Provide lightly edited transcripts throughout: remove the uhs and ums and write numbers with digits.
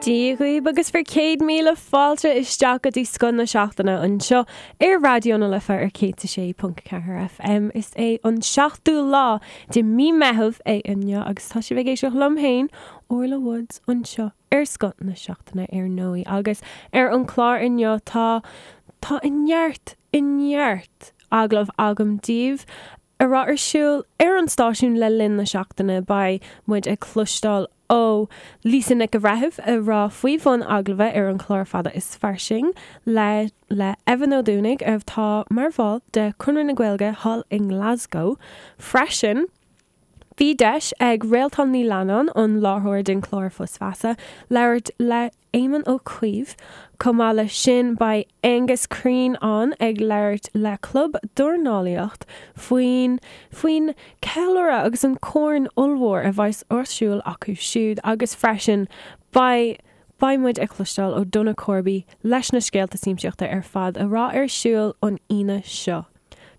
Dia dhaoibh agus bhur 100,000 fáilte isteach go dtí Scoth na Seachtaine anseo ar Raidió na Life ar 106.4 FM. Is é an seachtú lá de mí Meitheamh é inniu agus tá sibh ag éisteacht liom féin, Orla Woods, anseo ar Scoth na Seachtaine ar ndóigh. Agus ar an chlár inniu tá tá neart, neart agallamh agam daoibh a raibh ar siúl ar an stáisiún le linn na seachtaine. Beidh muid ag cloisteáil ó Lisa Nic a' Bhreithimh a raibh faoi bhun agallaimh ar an chlár Fada is Fairsing le le Evan Ó Dúnaigh atá mar bhall de Conradh na Gaeilge thall i nGlasgow freisin. Bhí deis ag Réaltán Ní Leannáin, an láithreoir den chlár Fios Feasa, labhairt le Éamon Ó Cuív. Chomh maith leis sin beidh Aengus Crean ann ag labhairt le Club Dornálaíocht faoin faoin ceiliúradh agus an corn ollmhór a bheas ar siúl acu siúd agus freisin beidh beidh muid ag cloisteáil ó Donagh Corby leis na scéalta siamsaíochta ar fad a raibh ar siúl an Aoine seo.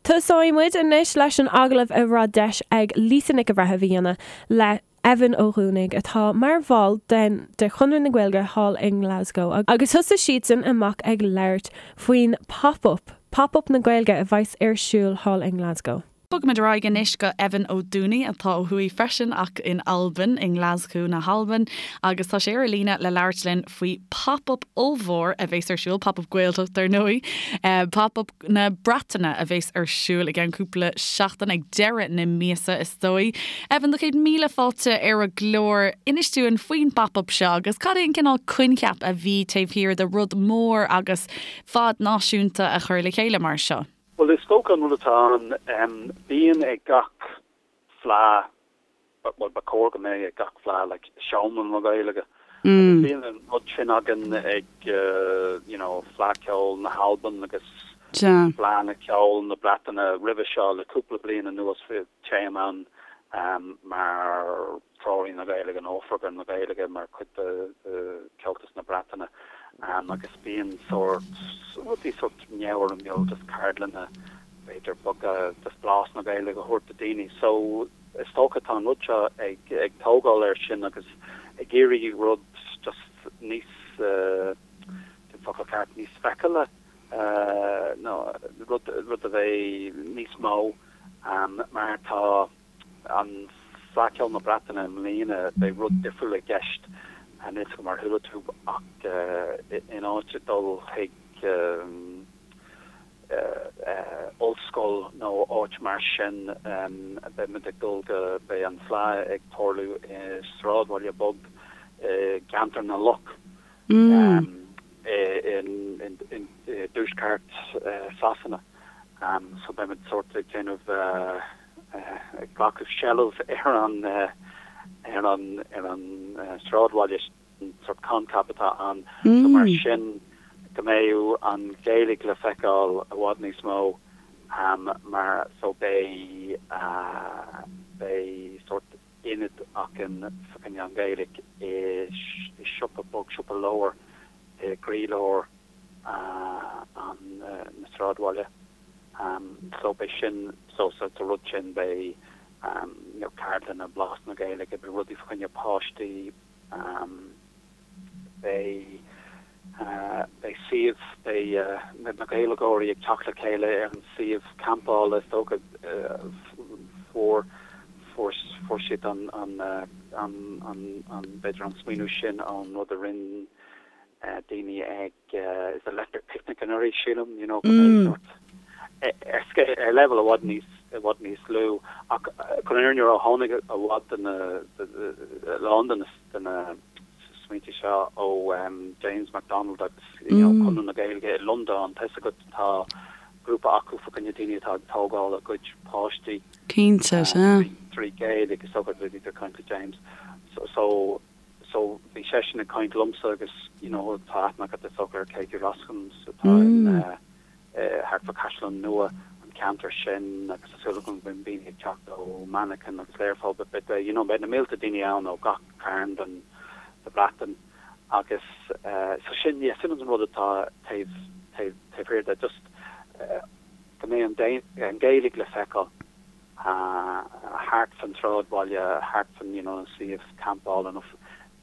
Tosóidh muid anois leis an agallamh a raibh deis ag Lisa Nic a' Bhreithimh a dhéanamh le Evan Ó Dúnaigh, atá mar bhall den de Chonradh na Gaeilge thall i nGlasgow, agus thosaigh siadsan amach ag labhairt faoin Pop Up, Pop Up na Gaeilge a bheas ar siúl thall i nGlasgow. Bogfaimid ar aghaidh anois go Evan Ó Dúnaigh, atá ó thuaidh freisin ach in Albain, i nGlaschú na hAlban, agus tá sé ar an líne le labhairt linn faoi Pop Up ollmhór a bheas ar siúl, Pop Up Gaeltacht ar ndóigh, Pop Up na Breataine a bheas ar siúl i gceann cúpla seachtain, ag deireadh na míosa is dóigh. Evan, do chéad míle fáilte ar an gclár. Inis dúinn faoin bPop Up seo agus cad é an cineál coincheap a bhí taobh thiar de rud mór agus fad náisiúnta a chur le chéile mar seo. Bhuel, is dócha an rud atá ann, bíonn ag gach fleá, bhuel, ba chóir go mbeadh ag gach fleá, like, seomra na Gaeilge. Agus bíonn an rud sin againn ag, you know, Fleadh Cheoil na hAlban agus Fleadh na Ceoil na Breataine roimhe seo le cúpla bliain anuas bhí téim ann mar Treoraí na Gaeilge nó Oifigeach na Gaeilge mar chuid de Chomhaltas na Breataine agus bíonn sórt rudaí sórt neamhfhoirmiúil just ceardlanna b'fhéidir beaga just blas na Gaeilge a thabhairt do daoine. So is dócha tá an rud seo ag ag tógáil air sin agus ag iarraidh rud just níos cén focal ceart níos feiceála nó rud rud a bheidh níos mó mar tá An Fleadh Cheoil na Breataine i mbliana, beidh rud difriúil i gceist, níl 'fhios agam ar chuala tú ach in áit dul chuig ollscoil nó áit mar sin, beidh muid ag dul go, beidh an Fleadh ag tarlú i sráidbhaile beag i gCeantar na Loch i dtuaisceart Sasana. So beidh muid sórt ag déanamh ag glacadh seilbh ar an ar an ar an sráidbhaile sin, sórt coincheap atá ann. So mar sin go mbeidh an Ghaeilge le feiceáil i bhfad níos mó mar so beidh beidh sórt ionad againn fá choinne an Ghaeilge i siopa beag, siopa leabhar i gcroílár an na sráidbhaile. So beidh sin, so sa rud sin beidh you know ceardlanna, blas na Gaeilge, beidh rudaí fá choinne páistí, beidh beidh suíomh, beidh na Gaeilgeoirí ag teacht le chéile ar an suíomh campála is dócha fuair fuair fuair siad an an an an an b'fhéidir an smaoineamh sin ón rud a rinne daoine ag is Electric Picnic anuraidh sílim you know go mbeidh sórt ar scéal ar leibhéal i bhfad níos i bhfad níos lú ach chun an fhírinne a rá tháinig i bhfad de na a lán de na de na smaointe seo ó James McDonald agus you know Conradh na Gaeilge i Londain tá 'fhios agat tá grúpa acu fá choinne daoine atá ag tógáil a gcuid páistí Cinnte, sea. trí Ghaeilge is dócha go bhí caint le James so so So bhí seisean ag caint liomsa agus you know tá aithne agat is dócha ar Katie Roskams atá in eh thart fá Caisleán Nua, an ceantar sin agus tá súil agam go mbeidh daoine ag teacht ó Manchain agus Learpholl but beidh you know beidh na mílte daoine ann ó gach cearn den de Bhreatain agus eh so sin yeah sin an rud atá taobh taobh taobh thiar de just eh go mbeidh an an Ghaeilge le feiceáil. thart fan sráidbhaile, thart fan you know an suíomh campála nó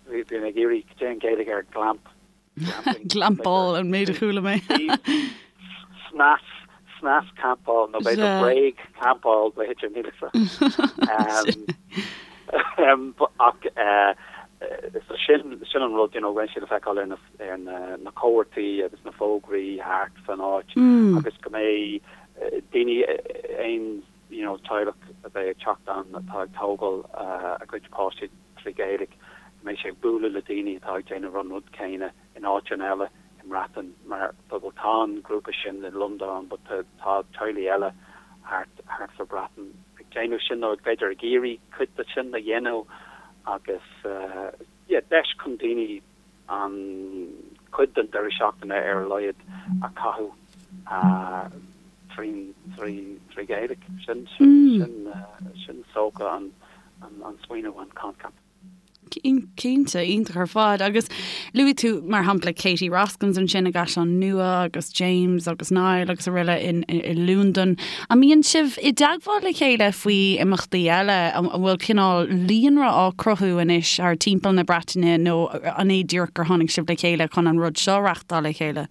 bhí Bhí mé ag iarraidh, cad é an Ghaeilge ar glamp? Glampáil an méid a chuala mé. Snas, snas campáil nó b'fhéidir bréag campáil b'fhéidir níl a fhios agam. Ach so sin sin an rud you know go mbeidh sé le feiceáil ar na ar na na comharthaí agus na fógraí thart fan áit agus go mbeidh daoine aon you know teaghlach a bheidh ag teacht ann atá ag tógáil a gcuid páistí trí Ghaeilge, go mbeidh sé ag bualadh le daoine atá ag déanamh an rud céanna in áiteanna eile i mBreatain mar bhuel tá an grúpa sin i Londain but tá teaghlaigh eile thart thart sa Bhreatain ag déanamh sin nó b'fhéidir ag iarraidh cuid de sin a dhéanamh agus yeah deis chun daoine an cuid den deireadh seachtaine ar a laghad a chaitheamh trí Ghaeilge. Sin sin is dócha an smaoineamh, an coincheap. Cinnte, iontach ar fad. Agus luaigh tú mar shampla Katie Roskams ansin i gCaisleán Nua agus James agus Niall agus araile i Londain. An mbíonn sibh i dteagmháil le chéile faoi imeachtaí eile? An bhfuil cineál líonra á cruthú anois thar timpeall na Breataine nó an é díreach gur tháinig sibh le chéile chun an rud seo a reachtáil le chéile?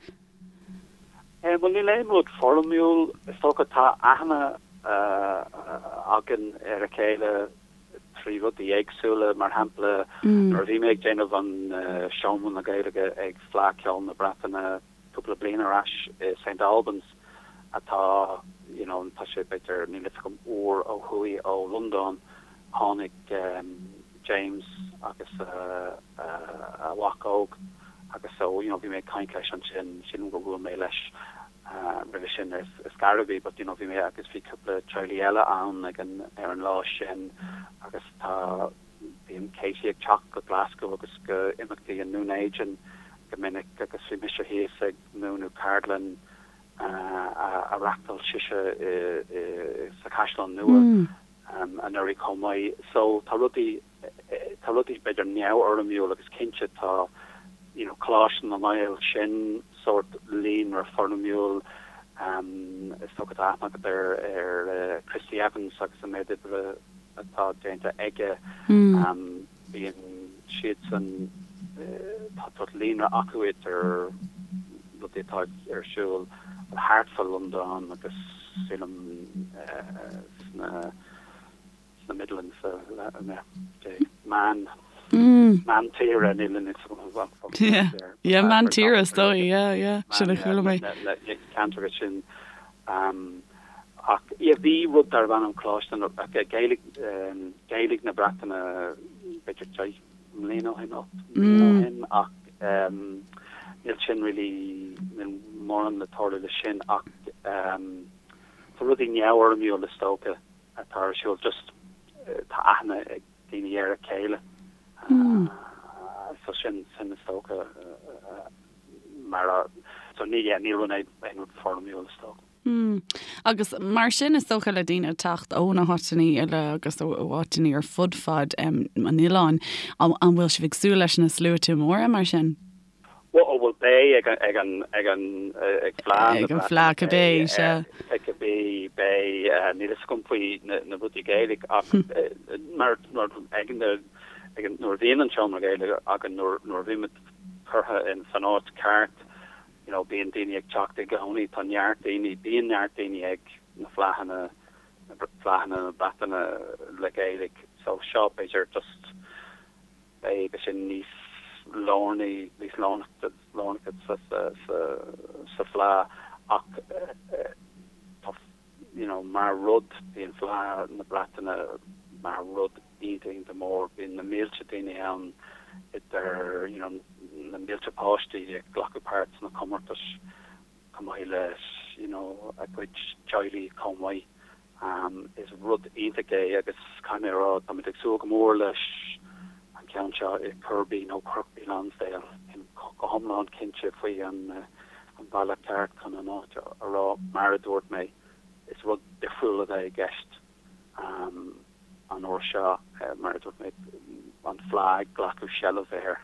Bhuel, níl aon rud foirmiúil. Is dócha tá aithne againn ar a chéile trí rudaí éagsúla. Mar shampla, nuair a bhí mé ag déanamh an Seomra na Gaeilge ag Fleadh Cheoil na Breataine, cúpla bliain ar ais i St Albans atá you know tá sé b'fhéidir níl fhios agam uair ó thuaidh ó Londain tháinig James agus a mhac óg agus so you know bhí mé ag caint leis ansin sílim gur bhuail mé leis roimhe sin ar scor ar bith but you know bhí mé agus bhí cúpla teaghlaigh eile ann ag an ar an lá sin agus tá Bíonn Katie ag teacht go Glasgow agus go imeachtaí i nDún Éideann go minic agus bhí mise thíos ag múineadh ceardlann a reachtáil sise sa Chaisleán Nua anuraidh chomh maith. So tá rudaí, tá rudaí b'fhéidir neamhfhoirmiúil agus cinnte tá you know Coláiste na nGael sin sórt líonra foirmiúil. Is dócha tá aithne agat ar ar Christy Evans agus an méid oibre atá déanta aige. Bíonn siadsan, tá sórt líonra acu idir rudaí atá ar siúl thart fá Londain agus sílim sna sna Midlands, meán meán tíre níl a fhios agam. Yeah, meán tíre is dóigh, yeah, yeah, sin a chuala mé. Na ceantracha sin. Ach yeah bhí rud darbh ainm Coláiste na, Gaeilge, Gaeilge na Breataine b'fhéidir 10 mbliana ó shin, 8 mbliana ó shin ach níl sin really, níl mórán le tarlú le sin ach tá rudaí neamhfhoirmiúil is dócha atá ar siúl just tá aithne ag daoine ar a chéile so sin, sin is dócha mar a, so ní, yeah, níl rud aon rud foirmiúil is dócha. Mm. Agus mar sin is dócha le daoine teacht ó na háiteanna eile agus ó áiteanna ar fud fad um, an oileáin, an, an bhfuil sibh ag súil leis na sluaite móra mar sin? Well, oh, well beidh ag an, ag an, ag an, ag Fleadh Ag an Fleadh cibé, sea. Cibé, beidh, níl a fhios agam faoi na, na rudaí Gaeilge ach mar, mar ag an, ag an, nuair a bhíonn an seomra Gaeilge againn, nuair, nuair a bhímid curtha in san áit ceart, you know, bíonn daoine ag teacht i gcónaí, tá neart daoine, bíonn neart daoine ag na fleadhanna, na fleadhanna na Breataine le Gaeilge, so seo b'fhéidir just beidh sé níos lárnaí, níos lárnacha sa, sa, sa, sa fleadh ach tá, you know, mar rud, bíonn Fleadh na Breataine mar rud iontach, iontach mór, bíonn na mílte daoine ann idir, you know, na mílte páistí ag glacadh páirt sna comórtais chomh maith le, you know, a gcuid teaghlaigh chomh maith. Is rud iontach é agus caithfidh mé a rá, táimid ag súil go mór leis an ceann seo i Kirkby nó Kirkby Lonsdale, go hiomlán cinnte faoi an bealach ceart chun an áit a rá. Mar a dúirt mé, is rud difriúil a bheidh i gceist an uair seo, mar a dúirt mé, an Fleadh ag glacadh seilbh ar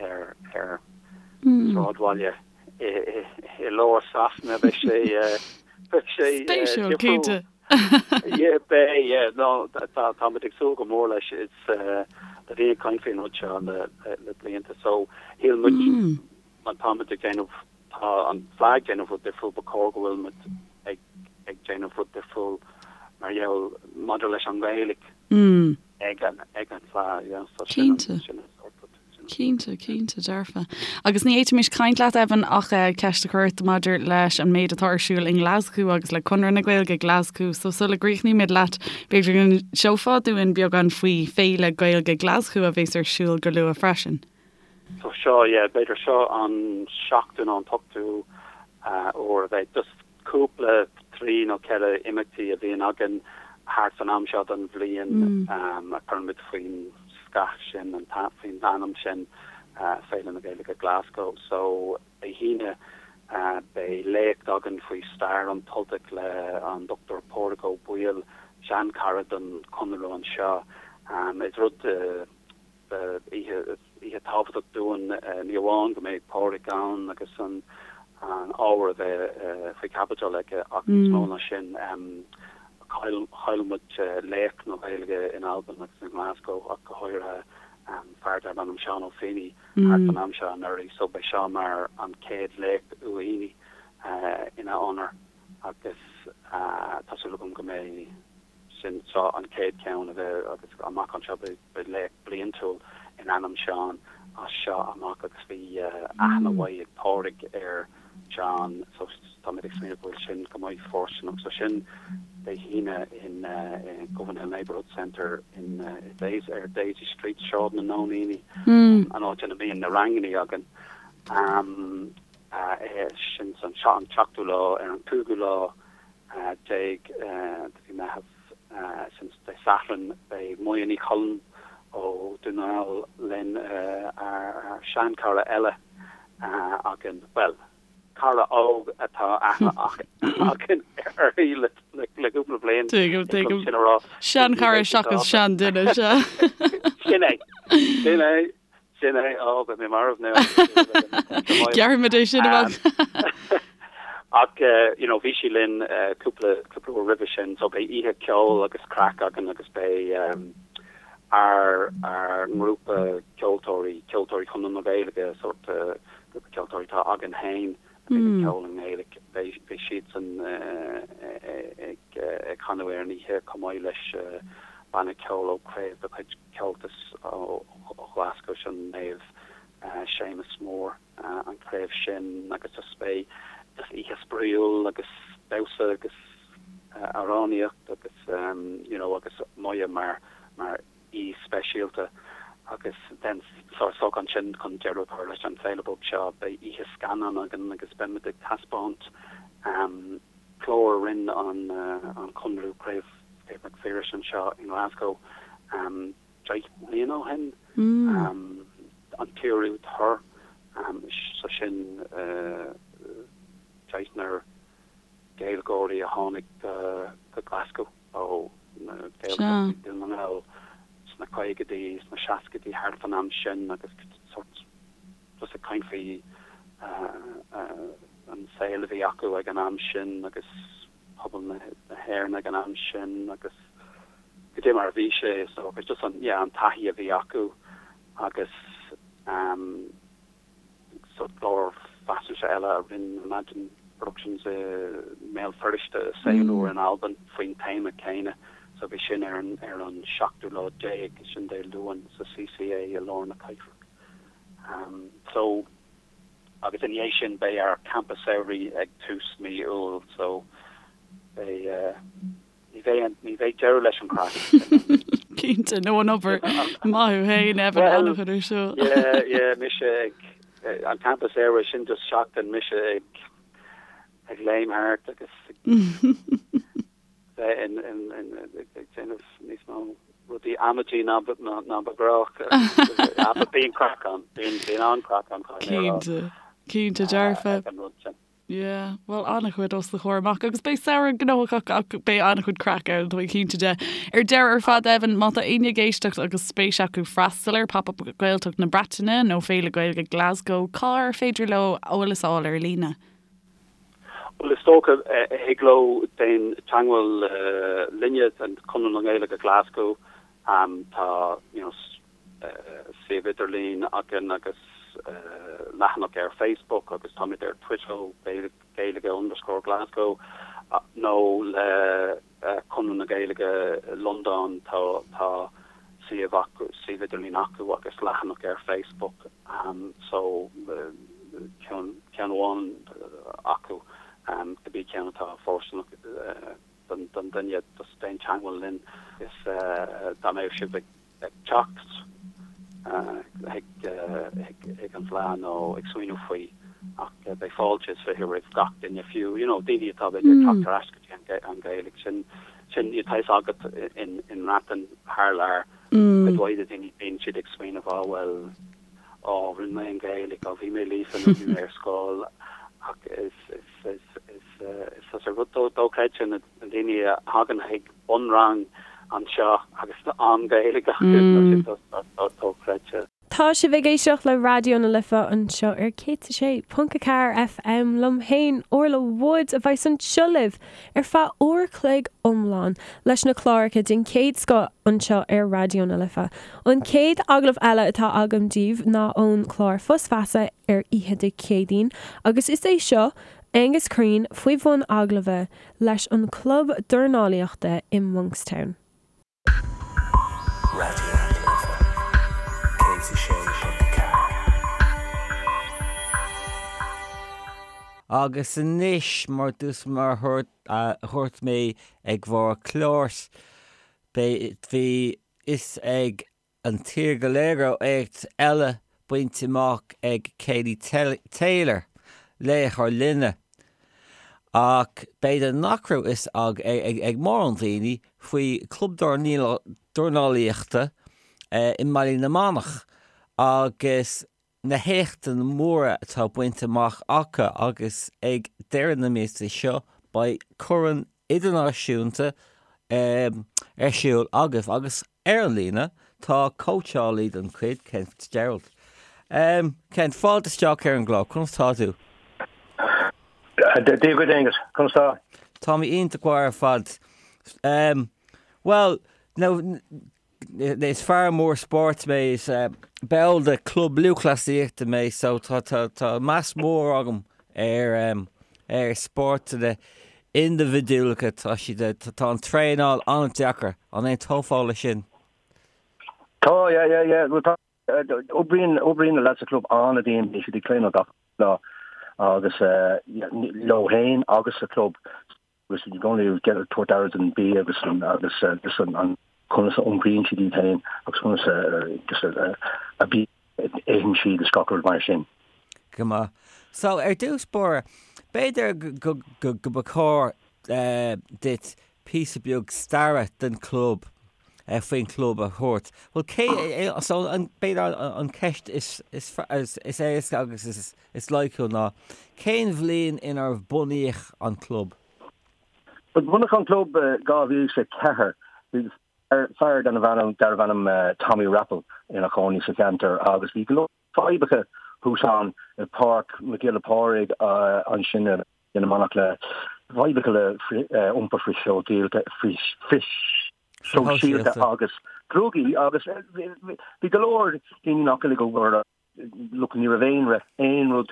ar ar sráidbhaile i lár Sasana. Beidh sé beidh sé Spéisiúil, cinnte. Yeah, beidh, yeah, no, tá táimid ag súil go mór leis. Is. Tá daoine ag caint faoin rud seo le le blianta so shíl muid má táimid ag déanamh tá an Fleadh ag déanamh rud difriúil ba chóir go bhfuil muid ag ag déanamh rud difriúil mar gheall maidir leis an Ghaeilge ag an ag an Fleadh yeah so sin an sin an sórt rud. Cinnte, cinnte, dearfa. Agus ní fhéadfaimis caint leat, Evan, ach ceist a chur ort maidir leis an méid atá ar siúl i nGlaschú agus le Conradh na Gaeilge Glaschú. So sula gcríochnaímid leat, b'fhéidir go n-inseofá dúinn beagán faoi Féile Gaeilge Glaschú a bheas ar siúl go luath freisin. So seo, yeah, b'fhéidir seo an seachtú nó an t-ochtú uair a bheidh. Just cúpla, trí nó ceithre imeachtaí a bhíonn againn thart fan am seo den bhliain a chuirimid faoin scath sin, faoin ainm sin, Féile na Gaeilge Glasgow. So, Dé hAoine beidh léacht againn faoi stair an tUltaigh le an Dr Pádraig Ó Baoill, seanchara don Chonradh anseo. Is rud. Oíche, oíche tábhachtach dúinn, ní amháin go mbeidh Pádraig ann agus an ábhar a bheidh faoi chaibidil aige ach níos mó ná sin, chaill, chaill muid laoch na Gaeilge in Albain agus i nGlasgow ach go háirithe, fear darb ainm Seán Ó Fínneadha thart fan am seo anuraidh so beidh seo mar an chéad léacht Uí Fhínneadha ina onóir agus tá súil agam go mbeidh sin seo an chéad cheann a bheidh agus amach anseo beidh Beidh léacht bliantúil in ainm Seán as seo amach agus bhí aithne mhaith ag Pádraig ar Sheán so táimid ag smaoineamh go bhfuil sin go maith fóirsteanach. So sin Dé hAoine in Govanhill Neighbourhood Centre in Daisy, ar Daisy Street, Sráid na Nóiníní, an áit ina mbíonn na rangannaí againn. Sin an seachtú lá ar an cúigiú lá de mhí Meitheamh. Sin Dé Sathairn. Beidh Moya Ní Choilm ó Dún na nGall linn, ár seanchara eile againn, bhuel, cara óg atá aithne againn uirthi le cúpla bliain. Tuigim, tuigim. Sin a rá. Seanchara seachas seanduine, sea. Sin é. Sin é. Sin é, ó, beidh mé marbh now. Gearrfaimid é sin amach. Ach, you know, bhí sí linn cúpla, cúpla uair roimhe sin, so beidh oíche ceoil agus craic againn agus beidh ár, ár ngrúpa ceoltóirí, Ceoltóirí Chonradh na Gaeilge, sórt grúpa ceoltóirí atá againn féin, a bhíonn ag ceol i nGaeilge, beidh, beidh siadsan ag, ag canadh ar an oíche chomh maith leis banna ceoil ó chraobh de chuid Comhaltas ó Ghlaschú, sin Naomh Séamus Mór an chraobh sin agus just beidh just oíche spraíúil agus damhsa agus amhránaíocht agus you know agus Moya mar mar aoi speisialta agus then so so ansin chun deireadh a chur leis an féile beag seo beidh oíche scannán againn agus beimid ag taispeáint clár a rinne an an Conradh Craobh Craobh Mhic Phiarais anseo i nGlasgow 10 mbliana ó shin, an tRú Tur, so sin deichniúr Gaeilgeoirí a tháinig go Glasgow ó na Gaeltachtaí Dún na nGall sna caogaidí, sna seascaidí, thart fan am sin agus sort just ag caint faoi an saol a bhí acu ag an am sin agus pobal na hÉireann ag an am sin agus goidé mar a bhí sé is dócha, just an, yeah, an taithí a bhí acu agus ehm sort clár faisnéise eile a rinne Imagine Productions i mBéal Feirste, Saol Úr in Albain faoin téama céanna so bhí sin ar an, ar an seachtú lá déag, sin Dé Luain sa CCA i lár na cathrach. Ehm so. Agus ina dhiaidh sin beidh ár campa samhraidh ag tús mí Iúil so beidh, ní bheidh, ní bheidh deireadh leis an chraic. Cinnte, nó an obair. Maith thú féin, Evan, an-chuid ar siúl. Yeah, yeah, mise ag, an campa samhraidh sin just seachtain mise ag, ag léim thart agus ag. bheith ag déanamh níos mó rudaí amaidí ná ba ghnách. Bíonn craic ann, bíonn an-chraic ann caithfidh mé a rá. Cinnte, cinnte dearfa. Ag an rud sin. Yeah, bhuel an-chuid os do chomhair amach agus beidh samhradh gnóthach ach beidh an-chuid craic ann, tá mé cinnte de. Ar deireadh ar fad Evan, má tá éinne ag éisteacht agus spéis acu freastal ar Pop Up Gaeltacht na Breataine nó Féile Gaeilge Glasgow, cár féidir leo eolas a fháil ar líne? Bhuel, is dócha, thig leo déan teagmháil linne, Conradh na Gaeilge Glasgow, tá, you know, suíomh idirlín againn agus leathanach ar Facebook agus táimid ar Twitter, Gaeilge underscore Glasgow, nó le Conradh na Gaeilge Londain, tá tá suíomh acu, suíomh idirlín acu agus leathanach ar Facebook so ceann amháin acu, cibé ceann atá fóirsteanach don duine, just déan teagmháil linn is dá mbeadh sibh ag ag teacht chuig an bhFleadh nó ag smaoineamh faoi ach beidh fáilte is 20 roimh gach duine, fiú you know daoine atá b'fhéidir ag teacht ar ais go dtí an Ghaeilge. Sin sin tá fhios agat in i mBreatain thar lear cuid mhaith de daoine bíonn siad ag smaoineamh á bhuel á rinne mé an Ghaeilge, á bhí mé líofa nó bhí mé ar scoil ach is is is is is is rud dochreidte na daoine a thagann chuig bunrang anseo agus an Ghaeilge acu, tá sé dochreidte. Tá sibh ag éisteacht le Raidió na Life anseo ar 106.4 FM liom féin, Orla Woods, a bheas anseo libh ar feadh uair a chloig iomlán leis na cláracha den chéad scoth anseo ar Raidió na Life. An chéad agallamh eile atá agam daoibh ná ón chlár Fios Feasa ar oíche Dé Céadaoin agus is é seo Aengus Crean faoi bhun agallaimh leis an chlub dornálaíochta i Monkstown. Raidió na Life 106.4. Agus anois, mar dús mar a dhúirt mé ag bharr cláir, bhí fhios ag an tír go léir go raibh éacht eile bainte amach ag Katie Taylor, laoch ár linne. Ach b'fhéidir nach raibh fhios ag mórán daoine faoi chlub dornálaíochta i mBaile na Manach agus na héachtanna móra atá bainte amach acu agus ag deireadh na míosa seo beidh corn idirnáisiúnta ar siúl agaibh agus ar an líne tá cóitseálaí den chuid, Ken Fitzgerald. Ken, fáilte isteach ar an gclár, conas tá tú? Dia duit Aengus, conas tá? Tá mé iontach maith ar fad. Bhuel, now, Is fear mór spóirt mé, is ball de chlub lúthchleasaíochta mé so tá tá meas mór agam ar ar spórtanna indibhidiúlacha, tá siad tá an traenáil an-deacair, an aontófá leis sin? Tá, yeah, yeah, yeah, bhuel tá, oibríonn, oibríonn na lads sa chlub an-dian, bíonn siad ag traenáil gach lá agus leo féin agus sa chlub. agus i gcónaí ag tabhairt aire don bia agus an agus just an an conas a iompraíonn siad iad féin agus conas a just a a bia a itheann siad is gach rud mar sin. Go maith. So, ar dtús báire, b'fhéidir go go go ba chóir duit píosa beag staire den chlub, faoin chlub a thabhairt. Bhuel, cé, so an, b'fhéidir an cheist is is is éasca agus is is loighciúil ná, cén bhliain inar bunaíodh an club? Bhuel, bunaíodh an club i 2004. Bhí fear darbh ainm Tommy Raupple ina chónaí sa cheantar agus bhí go leor fadhbacha thuas ann i bPáirc Mhic Giolla Phádraig ansin i na Manach le fadhbacha le iompar frithshóisialta agus drugaí agus bhí go leor daoine nach bhfuil ag obair Look, ní raibh aon aon rud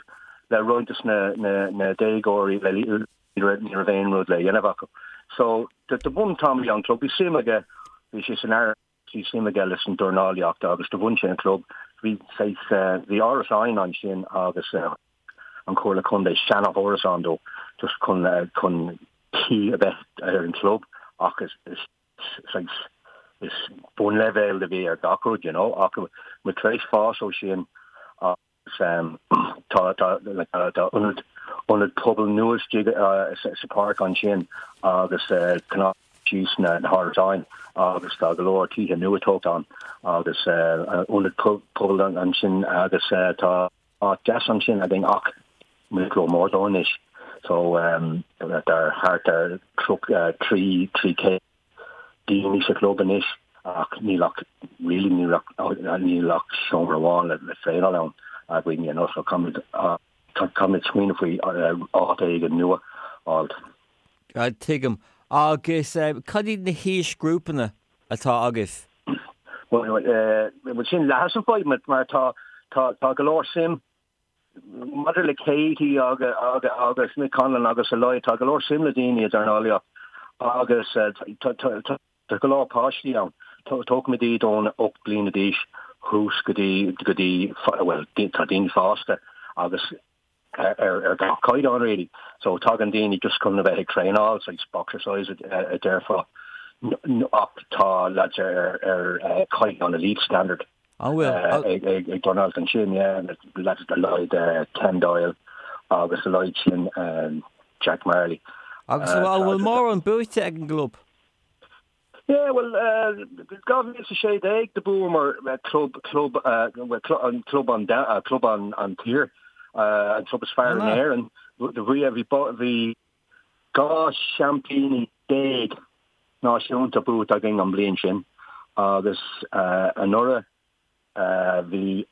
le roinnt dos na na déagóirí le ní raibh ní raibh aon rud le dhéanamh acu. So do do bhun Tommy an club, bhí suim aige, bhí sé san air, bhí suim aige leis an dornálaíocht agus do bhun sé an club. Bhí saghas bhí árasáin ansin agus an Chomhairle Contae seana-árasán dó just chun chun caoi a bheith ar an club ach is is saghas is bunleibhéal a bhí ar gach rud, you know, ach muid tar éis fás ó sin agus tá tá like tá ionad ionad pobail nua istigh sa pháirc ansin agus cnámh síos na na hárasáin agus tá go leor tithe nua tógtha ann agus ionad pobail ansin agus tá áit deas ansin againn ach muid ró-mhór dó anois so tá thart ar 300 daoine sa chlub anois ach níl ach really níl ach níl ach seomra amháin le le traenáil ann againn you know so caithfimid caithfimid smaoineamh faoi áit éigin nua a fháil. Tuigim. Agus cad iad na haoisghrúpanna atá agaibh? Bhuel sin leath an fadhb mar tá tá tá go leor suim maidir le Katie agus agus Mick Conlan agus a leithéid tá go leor suim le daoine i dornálaíocht agus tá tá Tá go leor páistí ann. Tógfaimid iad ón 8 bliana d'aois thuas go dtí, go dtí, bhuel, tá daoine fásta agus ar gach caighdeán really. So tagann daoine just chun a bheith ag traenáil, saghas boxercise a déarfá, ach tá lads ar ar caighdeán elite standard. An bhfuil? Ag dornáil ansin, yeah, lads a leithéid Ken Doyle agus a leithéid sin Jack Marley. Agus an bhfuil mórán buaite ag an gclub? Yeah, well, 2016 do bhuamar club, club, an club an, club an, an tír, an club is fearr in Éirinn. Bhí, bhí 12 seaimpíní náisiúnta buaite againn an bliain sin agus anuraidh bhí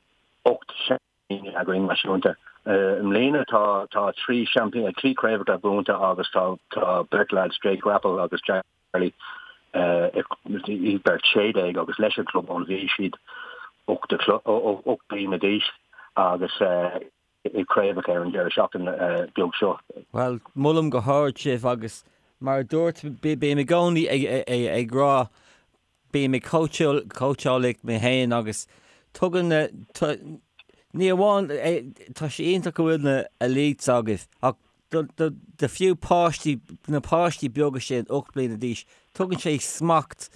8 seaimpíní againn náisiúnta. I mbliana tá tá 3 seaimpín, 3 craobhacha buaite agus tá tá beirt lads, Jake Rapple agus Jack Marley, iad beirt 16 agus leis an club ón bhí siad 8 bliana d'aois agus i craobhacha ar an deireadh seachtaine beag seo. Bhuel, molaim go hard sibh agus mar a dúirt, bím i gcónaí ag rá Bím ag cóitseáil mé féin agus tugann na, ní amháin, tá sé iontach go bhfuil na elites agaibh ach do fiú páistí, na páistí beaga sin 8 bliana d'aois, tugann sé smacht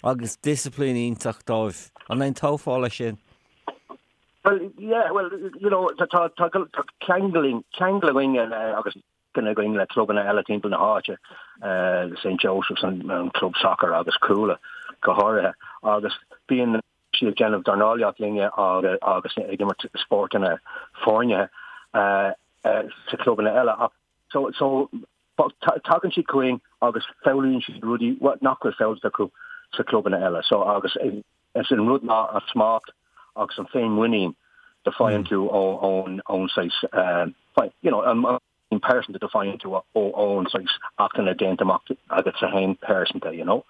agus disciplín iontach dóibh. An aontófá leis sin? Well, yeah, well, you know, tá tá tá ceangal ceangal againn agus againn le clubanna eile timpeall na háite, St Joseph's, an club sacair agus Cuala go háirithe, agus bíonn siad ag déanamh dornálaíocht linne agus ag imirt spórtanna foirne sa chlubanna eile. Ach so so tagann siad chugainn agus foghlaimíonn siad rudaí nach bhfuil foghlamtha acu sa chlubanna eile. So agus is an rud ná an smacht agus an féinmhuinín do faigheann tú ón ón saghas you know an an pearsanta do faigheann tú ón saghas acmhainne déanta amach agatsa féin pearsanta, you know.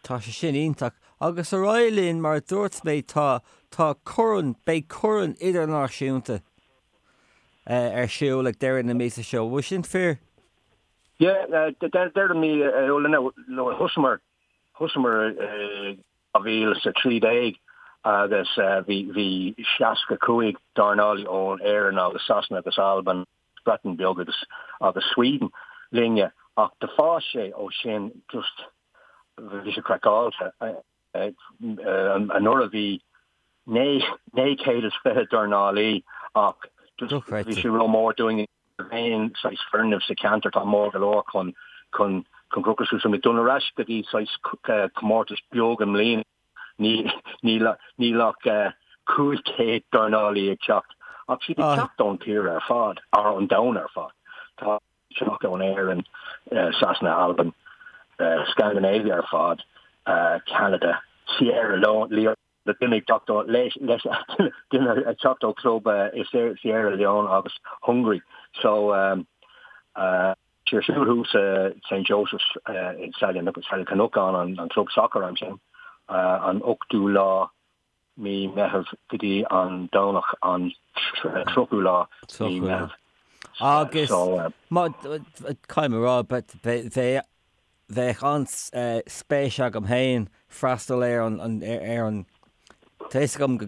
Tá sé sin iontach. Agus ar aghaidh linn, mar a dúirt mé, tá, tá corn, beidh corn idirnáisiúnta ar siúl ag deireadh na míosa seo. Bhfuil sin fíor? Yeah, deireadh mí Iúil, nó thosamar, thosamar i 2013 agus bhí, bhí 65 dornálaí ón Éirinn agus Sasana agus Albain, Breatain Bheag agus agus Sweden linne ach do fás sé ó sin just bhí sé craiceáilte. Anuraidh bhí 920 dornálaí ach just bhí sé rómhór dúinn aon saghas foirgneamh sa cheantar atá mór go leor chun chun chun crochadh suas. So muid dul ar ais go dtí saghas comórtas beag i mbliana. Níl ach 500 dornálaí ag teacht, ach siad ag teacht ón tír ar fad, or ón domhan ar fad. Tá teacht ón Éirinn, Sasana, Albain, Scandinavia ar fad, Ceanada, Sierra Leone, duine ag teacht ó duine ag teacht ó club i Sierra Leone agus Hungary. So Ar siúl thuas i St Joseph's i Saile Chnocán, an club sacair ansin, an 8ú lá mí Meitheamh go dtí an Domhnach an 30ú lá mí Meitheamh. Agus caithfidh mé a rá, bheadh an-spéis agam féin freastal ar an, ar an, tá fhios agam go,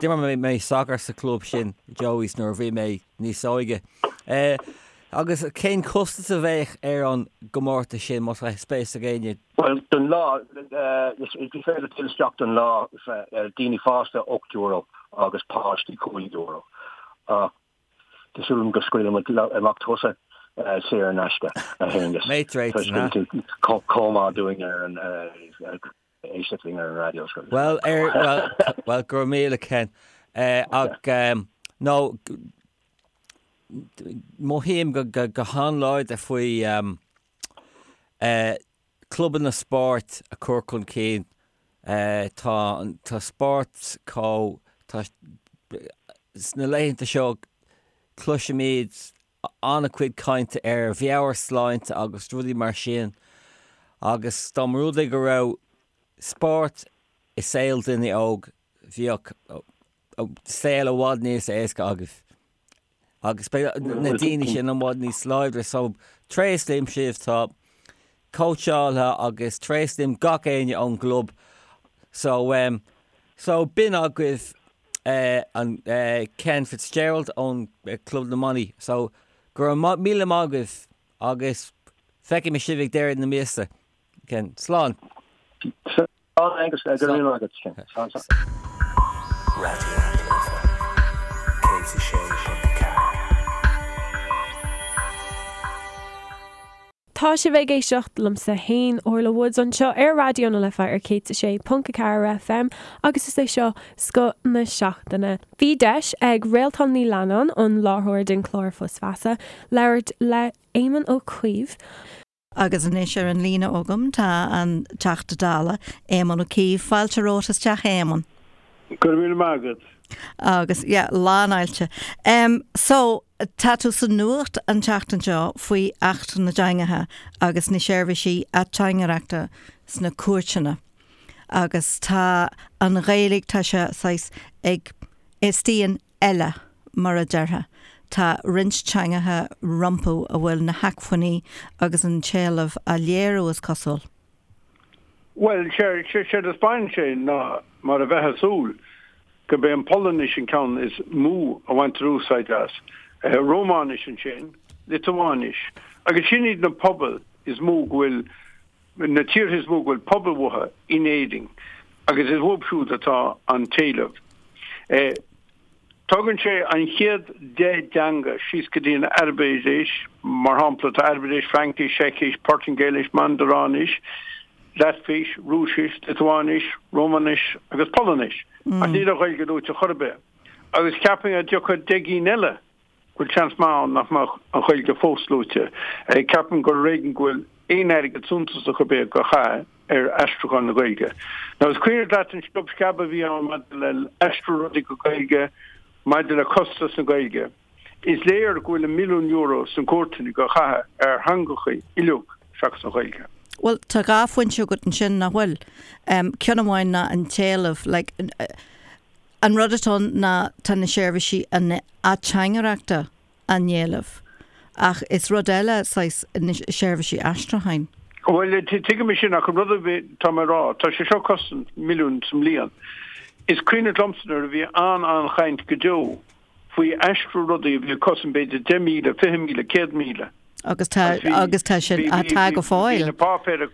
d'imir mé sacar sa chlub sin, Joey's, nuair a bhí mé níos óige. Agus cén costas a bheadh ar an gcomórtas sin, má tá spéis ag éinne? Bhuel, don lá, is féidir dul isteach don lá, daoine fásta €8 agus páistí €5. Ach Tá súil agam go scaoilfidh muid amach tusa saor in aisce, a Aonghus. Mate rates, Toisc go bhfuil tú chomh maith dúinn ar an éisteacht linn ar an raidió. Bhuel, ar, bhuel, bhuel, go raibh míle Ken. Ach, nó, mothaím go, go, go han-láidir faoi clubanna spóirt a chur chun cinn. Tá, tá spórt chomh, tá, sna laethanta seo cloisimid an-chuid cainte ar mheabhairshláinte agus rudaí mar sin agus dá mba rud é go raibh spórt. i saol duine óg bheadh saol i bhfad níos éasca agaibh agus beidh na daoine sin i bhfad níos láidre so tréaslaím sibh tá cóitseálaithe agus tréaslaím gach éinne ón gclub so um, so b'in agaibh uh, an uh, Ken Fitzgerald ón uh, Club na mBannaí so go raibh míle maith agaibh agus feicfidh mé sibh ag deireadh na míosa. Ken, slán. Slán Aengus, go raibh míle maith agat, Ken. Slán, slán. Raidió na Life 106.4. Tá sibh ag éisteacht liomsa fhéin, Orla Woods, anseo ar Raidió na Life ar 106.4 FM agus is é seo Scoth na Seachtaine. Bhí deis ag Réaltán Ní Leannáin, an láithreoir den chlár Fios Feasa, labhairt le Éamon Ó Cuív. Agus anois ar an líne agam tá an Teachta Dála, Éamon Ó Cuív. Fáilte romhat isteach, a Éamoin. Go raibh míle maith agat. Agus, yeah, lánfháilte. Em, so, tá tú sa nuacht an tseachtain seo faoi Acht na dTeangacha agus na seirbhísí ateangaireachta sna cúirteanna. Agus tá an Ghaeilge, tá sé saghas ag, istigh in eile, mar a déarfá. Tá roinnt teangacha rompu a bhfuil na hacmhainní agus an t-éileamh á léiriú, is cosúil. Bhuel, séard a 'spáineann sé ná, mar a bheifeá ag súil, gurb é an Pholainnis an ceann is mó a bhaintear úsáid as, Rómáinis ansin, Liotuáinis, agus sin iad na pobail is mó go bhfuil, na tíortha is mó go bhfuil pobal uathu in Éirinn agus is uathu siúd atá an t-éileamh. Tógann sé an chéad 10 dteanga síos go dtí an Araibis, mar shampla, tá Araibis, Fraincis, Seicis, Portaingéilis, Mandaráinis, Laitvis, Rúisis, Liotuáinis, Rómáinis agus Polainnis, ach níl an Ghaeilge luaite chor ar bith. Agus cheapfainn dá dtiocfadh 10 gcinn eile go bhfuil seans maith ann nach mbeadh an Ghaeilge fós luaite. Ceapaim gur ar éigean go bhfuil aon airgead suntasach ar bith á chaitheamh ar aistriúchán na Gaeilge. Now is cuimhin leat an sciob sceab a bhí ann maidir le aistriú rudaí go Gaeilge, maidir le costas na Gaeilge. Is léir go bhfuil an milliún euro sna cúirteanna á chaitheamh ar theangachaí uilig seachas an Ghaeilge. Bhuel, tá dhá phointe agat ansin, nach bhfuil? Ceann amháin ná an t-éileamh, like, An rud atá ann ná tá na seirbhísí ateangaireachta á n-éileamh ach is rud eile saghas na seirbhísí aistriúcháin. Bhuel, tuigim é sin ach an rud atá mé a rá, tá sé seo ag cosaint milliún sa mbliain. Is cuimhin liomsa nuair a bhí an-an-chaint go deo faoi aistriú rudaí a bhí ag cosaint b'fhéidir 10,000, 20,000, 100,000. Agus tá, agus tá sin, tá go fóill. Bhí na páipéir,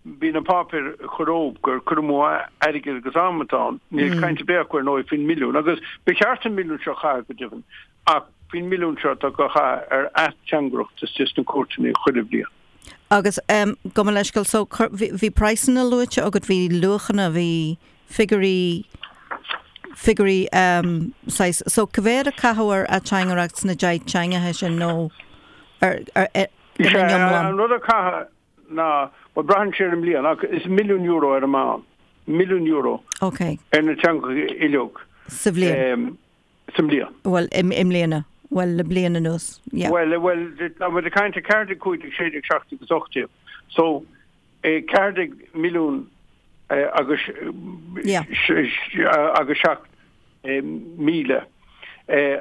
bhí na páipéir ag cur orthu gur cur amú airgid agus am atá ann. Níl caint ar bith acu ar ndóigh faoin milliún. Agus ba cheart an milliún seo a chaitheamh go deimhin, ach faoin milliún seo atá á chaitheamh ar ateangaireacht istigh sna cúirteanna chuile bhliain. Agus gabh mo leithscéal, so bhí praghsanna luaite agat, bhí luachanna, bhí figiúirí, figiúirí saghas, so cá mhéad a caitheadh ar ateangaireacht sna 10 teangacha sin nó ar, ar, ina n-iomlán? An rud a caitheadh ná, bhuel braitheann sé ar an mbliain ach is milliún euro ar an meán, milliún euro Ok. ar na teangacha uilig. Sa bhliain? Sa mbliain. Bhuel, i mbliana. Bhuel, le bliain anuas, yeah. Bhuel, bhuel, tá muid ag caint 14, 15, 16, 17 agus 18. So, 14 milliún agus agus 7,000.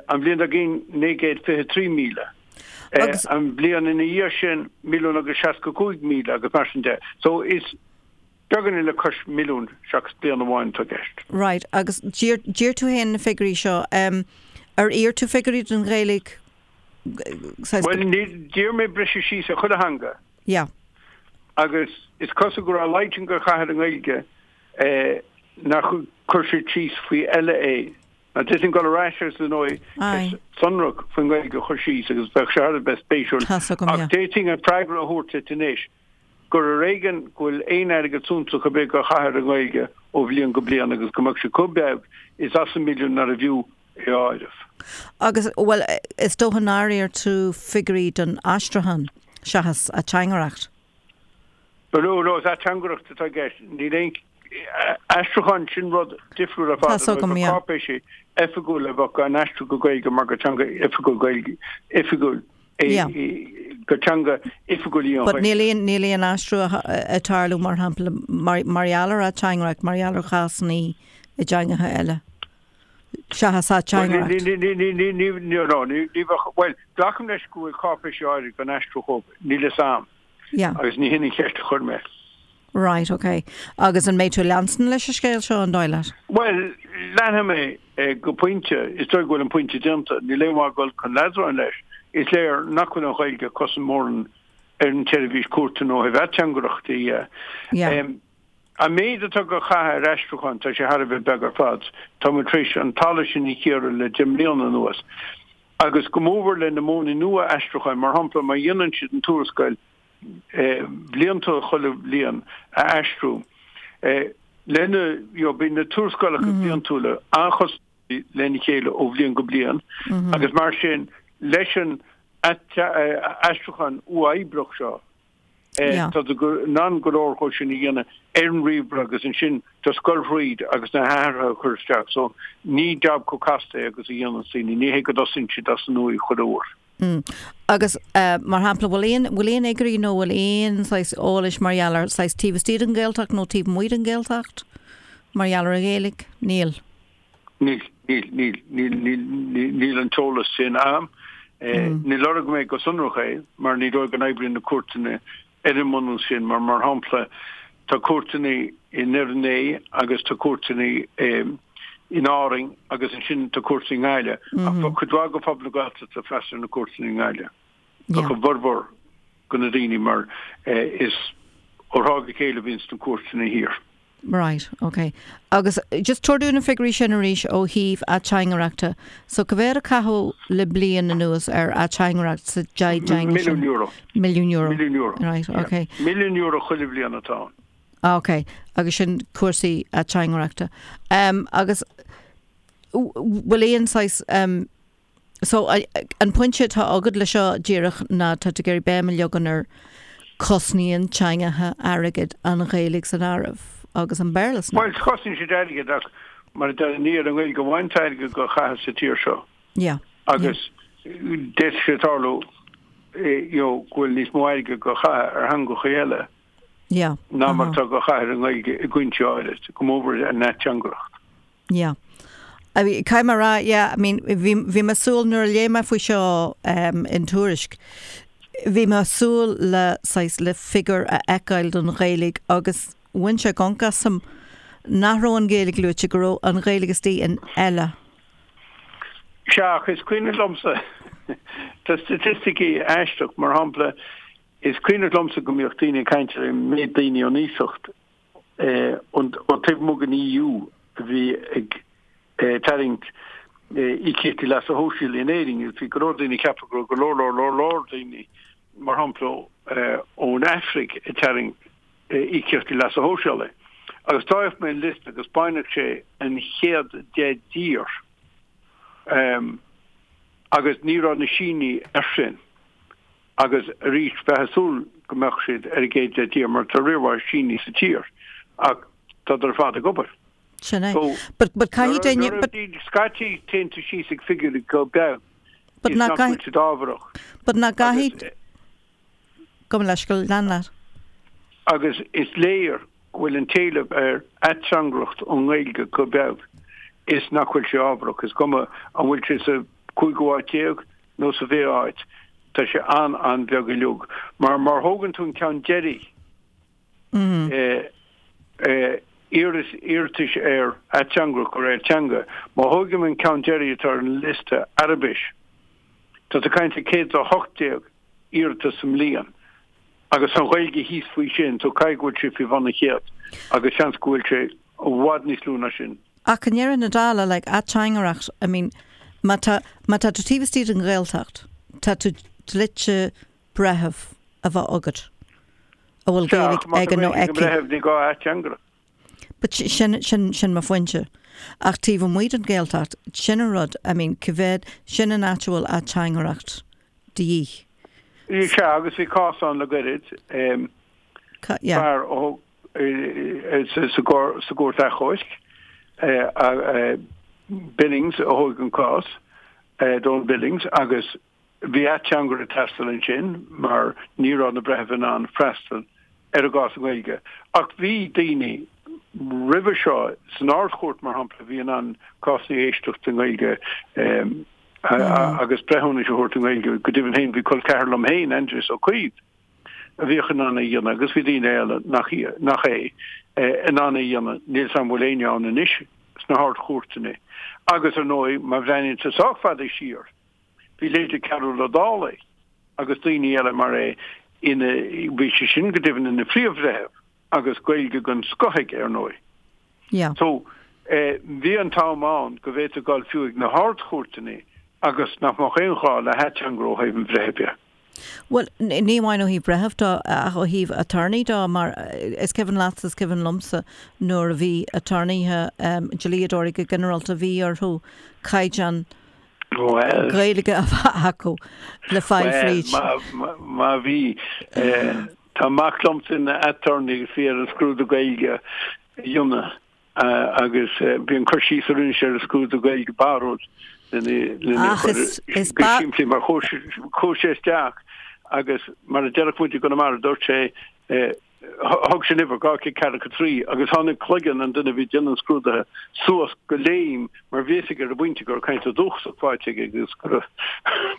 An bhliain dár gcionn 923,000. An bhliain ina dhiaidh sin milliún agus 65,000 agus mar sin de. So is beagáinín le cois milliún seachas bliain amháin atá i gceist. Right, agus d'iarr tú féin na figiúirí seo. Ar iarr tú figiúirí don Ghaeilge? Bhuel, d'iarr mé briseadh síos ar chuile theanga. Yeah. Agus is cosúil go raibh a laghad sin á chaitheamh ar an nGaeilge nár chuir siad síos faoi eile é. Now d'fhéadfainn dul ar ais agus ar ndóigh ceist sonrach faoin nGaeilge a chur síos agus bheadh sé thar a bheith spéisiúil. Ach d'fhéadfainn an freagra a thabhairt duit anois gur ar éigean go bhfuil aon airgead suntasach ar bith á chaitheamh ar an nGaeilge ó bhliain go bliain agus go mbeadh sé chomh beag is as an milliún nárbh fhiú é a áireamh. Agus, bhuel, is dócha nár iarr tú figiúirí don aistriúchán seachas ateangaireacht? No, no, is ateangaireacht atá i gceist. Níl aon aistriúchán, sin rud difriúil ar fad. Tá a fhios agam, yeah. Cáipéisí oifigiúla a bheadh á n-aistriú go Gaeilge mar gur teanga oifigiúil Gaeilge, oifigiúil é. Yeah. Gur teanga oifigiúil í an But níl aon, níl aon aistriú ag tarlú mar shampla mar, mar gheall ar ateangaireacht, mar gheall ar chásanna i dteangacha eile. Seachas ateangaireacht. Ní, ní, ní, ní, ní, ní, no, ní, ní bheadh, bhuel, glacaim leis go bhfuil cáipéisí áirid gan aistriú chomh, níl fhios a'm. Yeah. Agus ní hin an cheist a chuir mé. Right, ok. Agus an mbeidh tú ag leanstan leis an scéal seo, an dóigh leat? Bhuel, leanfaidh mé go pointe. Is dóigh go bhfuil an pointe déanta. Níl aon mhaith dul chun leadráin leis. Is léir nach bhfuil an Ghaeilge ag cosaint mórán ar an tseirbhís cúirteanna ó thaobh ateangaireachta dhe. Yeah. An méid atá á chaitheamh ar aistriúchán, tá sé thar a bheith beag ar fad. Tá muid tar éis an talamh sin a chíoradh le 10 mbliana anuas. Agus go mórmhór le na modhanna nua aistriúcháin, mar shampla, má dhéanann siad an tuarascáil bhliantúil chuile bhliain a aistriú, lena, you know, bíonn na tuarascálacha bliantúla an-chosúil lena chéile ó bhliain go bliain agus mar sin leis an aistriúchán uathoibríoch seo, Tá tú in ann go leor dhó sin a dhéanamh ar an ríomhaire agus ansin just goil thríd agus na hathruithe a chur isteach. So ní jab chomh casta é agus a dhéananns daoine. Ní hé go dtosaíonn siad as an nua chuile uair. Agus mar shampla, bhfuil aon, bhfuil aon fhigiúirí nó bhfuil aon saghas eolais mar gheall ar saghas taobh istigh den Ghaeltacht nó taobh amuigh den Ghaeltacht mar gheall ar an Ghaeilge? Níl. Níl, níl, níl, níl, níl, níl an t-eolas sin a'm. Níor lorg mé go sonrach é mar ní dóigh go n-oibríonn na cúirteanna ar an mbunús sin mar, mar shampla, tá cúirteanna i nDoire Né agus tá cúirteanna in Árainn agus ansin tá cúirteanna i nGaillimh. Ach tá cuid mhaith de phobal na Gaeltachta ag freastal ar na cúirteanna i nGaillimh. Tá a bhformhór de na daoine mar is ó thráth go chéile a bhíonns na cúirteanna thiar. Right, ok. Agus just tabhair dúinn na figiúirí sin arís ó thaobh ateangaireachta. So cá mhéad a caitheadh le bliain anuas ar ateangaireacht sa deich dteanga sin? Milliún euro. Milliún euro. Milliún euro. Right, ok. Milliún euro chuile bhliain atá ann. Ah, ok. Agus sin cúrsaí ateangaireachta. Um, agus bhfuil aon saghas um, So, an pointe atá agat le seo díreach ná tá tú ag iarraidh béim a leagan ar cosnaíonn teangacha airgead, an Ghaeilge san áireamh agus an Béarla san áireamh. Bhuel, cosnaíonn siad airgead ach mar a deir, ní ar an nGaeilge amháin atá airgead á chaitheamh sa tír seo. Yeah. Agus d'fhéadfadh sé tarlú you know, go bhfuil níos mó airgead á chaitheamh ar theangacha eile yeah. ná mar atá á chaitheamh ar an nGaeilge i gcúinsí áirid, go mórmhór an ateangaireacht. Yeah. I mean, caithfidh mé a rá, yeah, I mean, bhí, bhí mé ag súil, nuair a léigh mé faoi seo um, in Tuairisc, bhí mé ag súil le saghas, le figiúr a fheiceáil don Ghaeilge agus bhain sé gonc asam nach raibh an Ghaeilge luaite, go raibh an Ghaeilge istigh in eile. Sea, ach is cuimhneach liomsa, tá staitisticí aisteach, mar shampla, is cuimhneach liomsa go mbíodh daoine ag caint ar an méid daoine ón iasacht, ó taobh amuigh den EU a bhí ag tarraingt íocaíochtaí leasa shóisialaigh in Éirinn. Bhí go leor daoine ag ceapadh go raibh go leor leor leor leor daoine, mar shampla ón Afraic, ag tarraingt íocaíochtaí leasa shóisialaigh. Agus d'fhéach mé an liosta agus baineadh sé an chéad 10 dtír agus ní raibh na Sínigh air sin. Agus arís, bheifeá ag súil go mbeadh siad ar an gcéad 10 dtír mar tá riar mhaith Sínigh sa tír ach tádar ar fad ag obair. Sin é. But, but caithfidh duine, but. Scaití téann tú síos ag figiúirí chomh beag is nach bhfuil siad ábharach. But nach gcaithfidh, gabh mo leithscéal, lean leat. Agus is léir go bhfuil an t-éileamh ar ateangaireacht ón nGaeilge chomh beag is nach bhfuil sé ábharach. Is cuma an bhfuil sé sa cúigiú háit déag nó sa bhfichiú háit, tá sé an-an-bheag uilig. Mar má thógann tú an ceann deiridh, iarratais ar ateangaireacht de réir teanga, má thógaim an ceann deiridh atá ar an liosta, Araibis, tá tú ag caint ar 118 iarratas sa mbliain. Agus an Ghaeilge thíos faoi sin, so caithfidh go bhfuil sé faoi bhun an chéad, agus seans go bhfuil sé i bhfad níos lú ná sin. Ach i ndeireadh na dála, like, ateangaireacht, I mean, má tá, má tá tú taobh istigh den Ghaeltacht, tá tú dlite breitheamh a bheith agat a bhfuil Sea, ach Gaeilge má tá aige nó Gaeilge ag an aici. mbreitheamh, ní gá ateangaireacht. But sin, sin, sin mo phointe. Ach taobh amuigh den Ghaeltacht, sin an rud, I mean, cá mhéad, sin an áit a bhfuil ateangaireacht de dhíth. Sea, agus bhí cás ann le gairid, fear ó sa gCúirt Achomhairc, Billings a thóg an cás, Donald Billings, agus. Bhí ateangaire ag teastáil ansin mar ní raibh na breithimh in ann freastal ar an gcás i nGaeilge. Ach bhí daoine roimhe seo, san Ard-Chúirt mar shampla, a bhí in ann cásanna a éisteacht i nGaeilge agus breithiúnais a thabhairt i nGaeilge. Go deimhin féin bhí col ceathar liom féin, Aindrias Ó Caoimh, a bhíodh in ann é a dhéanamh agus bhí daoine eile nach nach é in ann é a dhéanamh. Níl 's a'm an bhfuil éinne ann anois sna hArd-Chúirteanna. Agus ar ndóigh, má bhreathnaíonn tú sách fada siar, bhí leithéidí Cearbhall Ó Dálaigh agus daoine eile mar é ina, bhí sé sin go deimhin ina phríomh-bhreitheamh agus Gaeilge den scoth aige ar ndóigh. Yeah. So, bhí an t-am ann go bhféadfaí dul fiú ag na hArd-Chúirteanna agus nach mbeadh aon ghá le hateangaire ó thaobh an bhreithimh de. Bhuel, ní amháin ó thaobh breitheamh de ach ó thaobh attorney de mar is cuimhin leatsa, is cuimhin liomsa nuair a bhí attorneythe, dlíodóirí go ginearálta, bhí orthu caighdeán Gaeilge a bheith acu le fáil fríd. Bhuel, má bhí, tá mac liomsa ina attorney agus bhí air an scrúdú Gaeilge a dhéanamh. Agus bhí an cur síos a rinne sé ar an scrúdú Gaeilge barrúil lena chur go simplí mar chuaigh sé isteach agus mar a déarfadh muid i gConamara dúirt sé thug sé an uimhir, 243 agus tháinig cloigeann an duine a bhí ag déanamh an scrúdaithe suas go léim mar bhí fhios aige ar an bpointe go raibh caint dúchasach faighte aige agus go raibh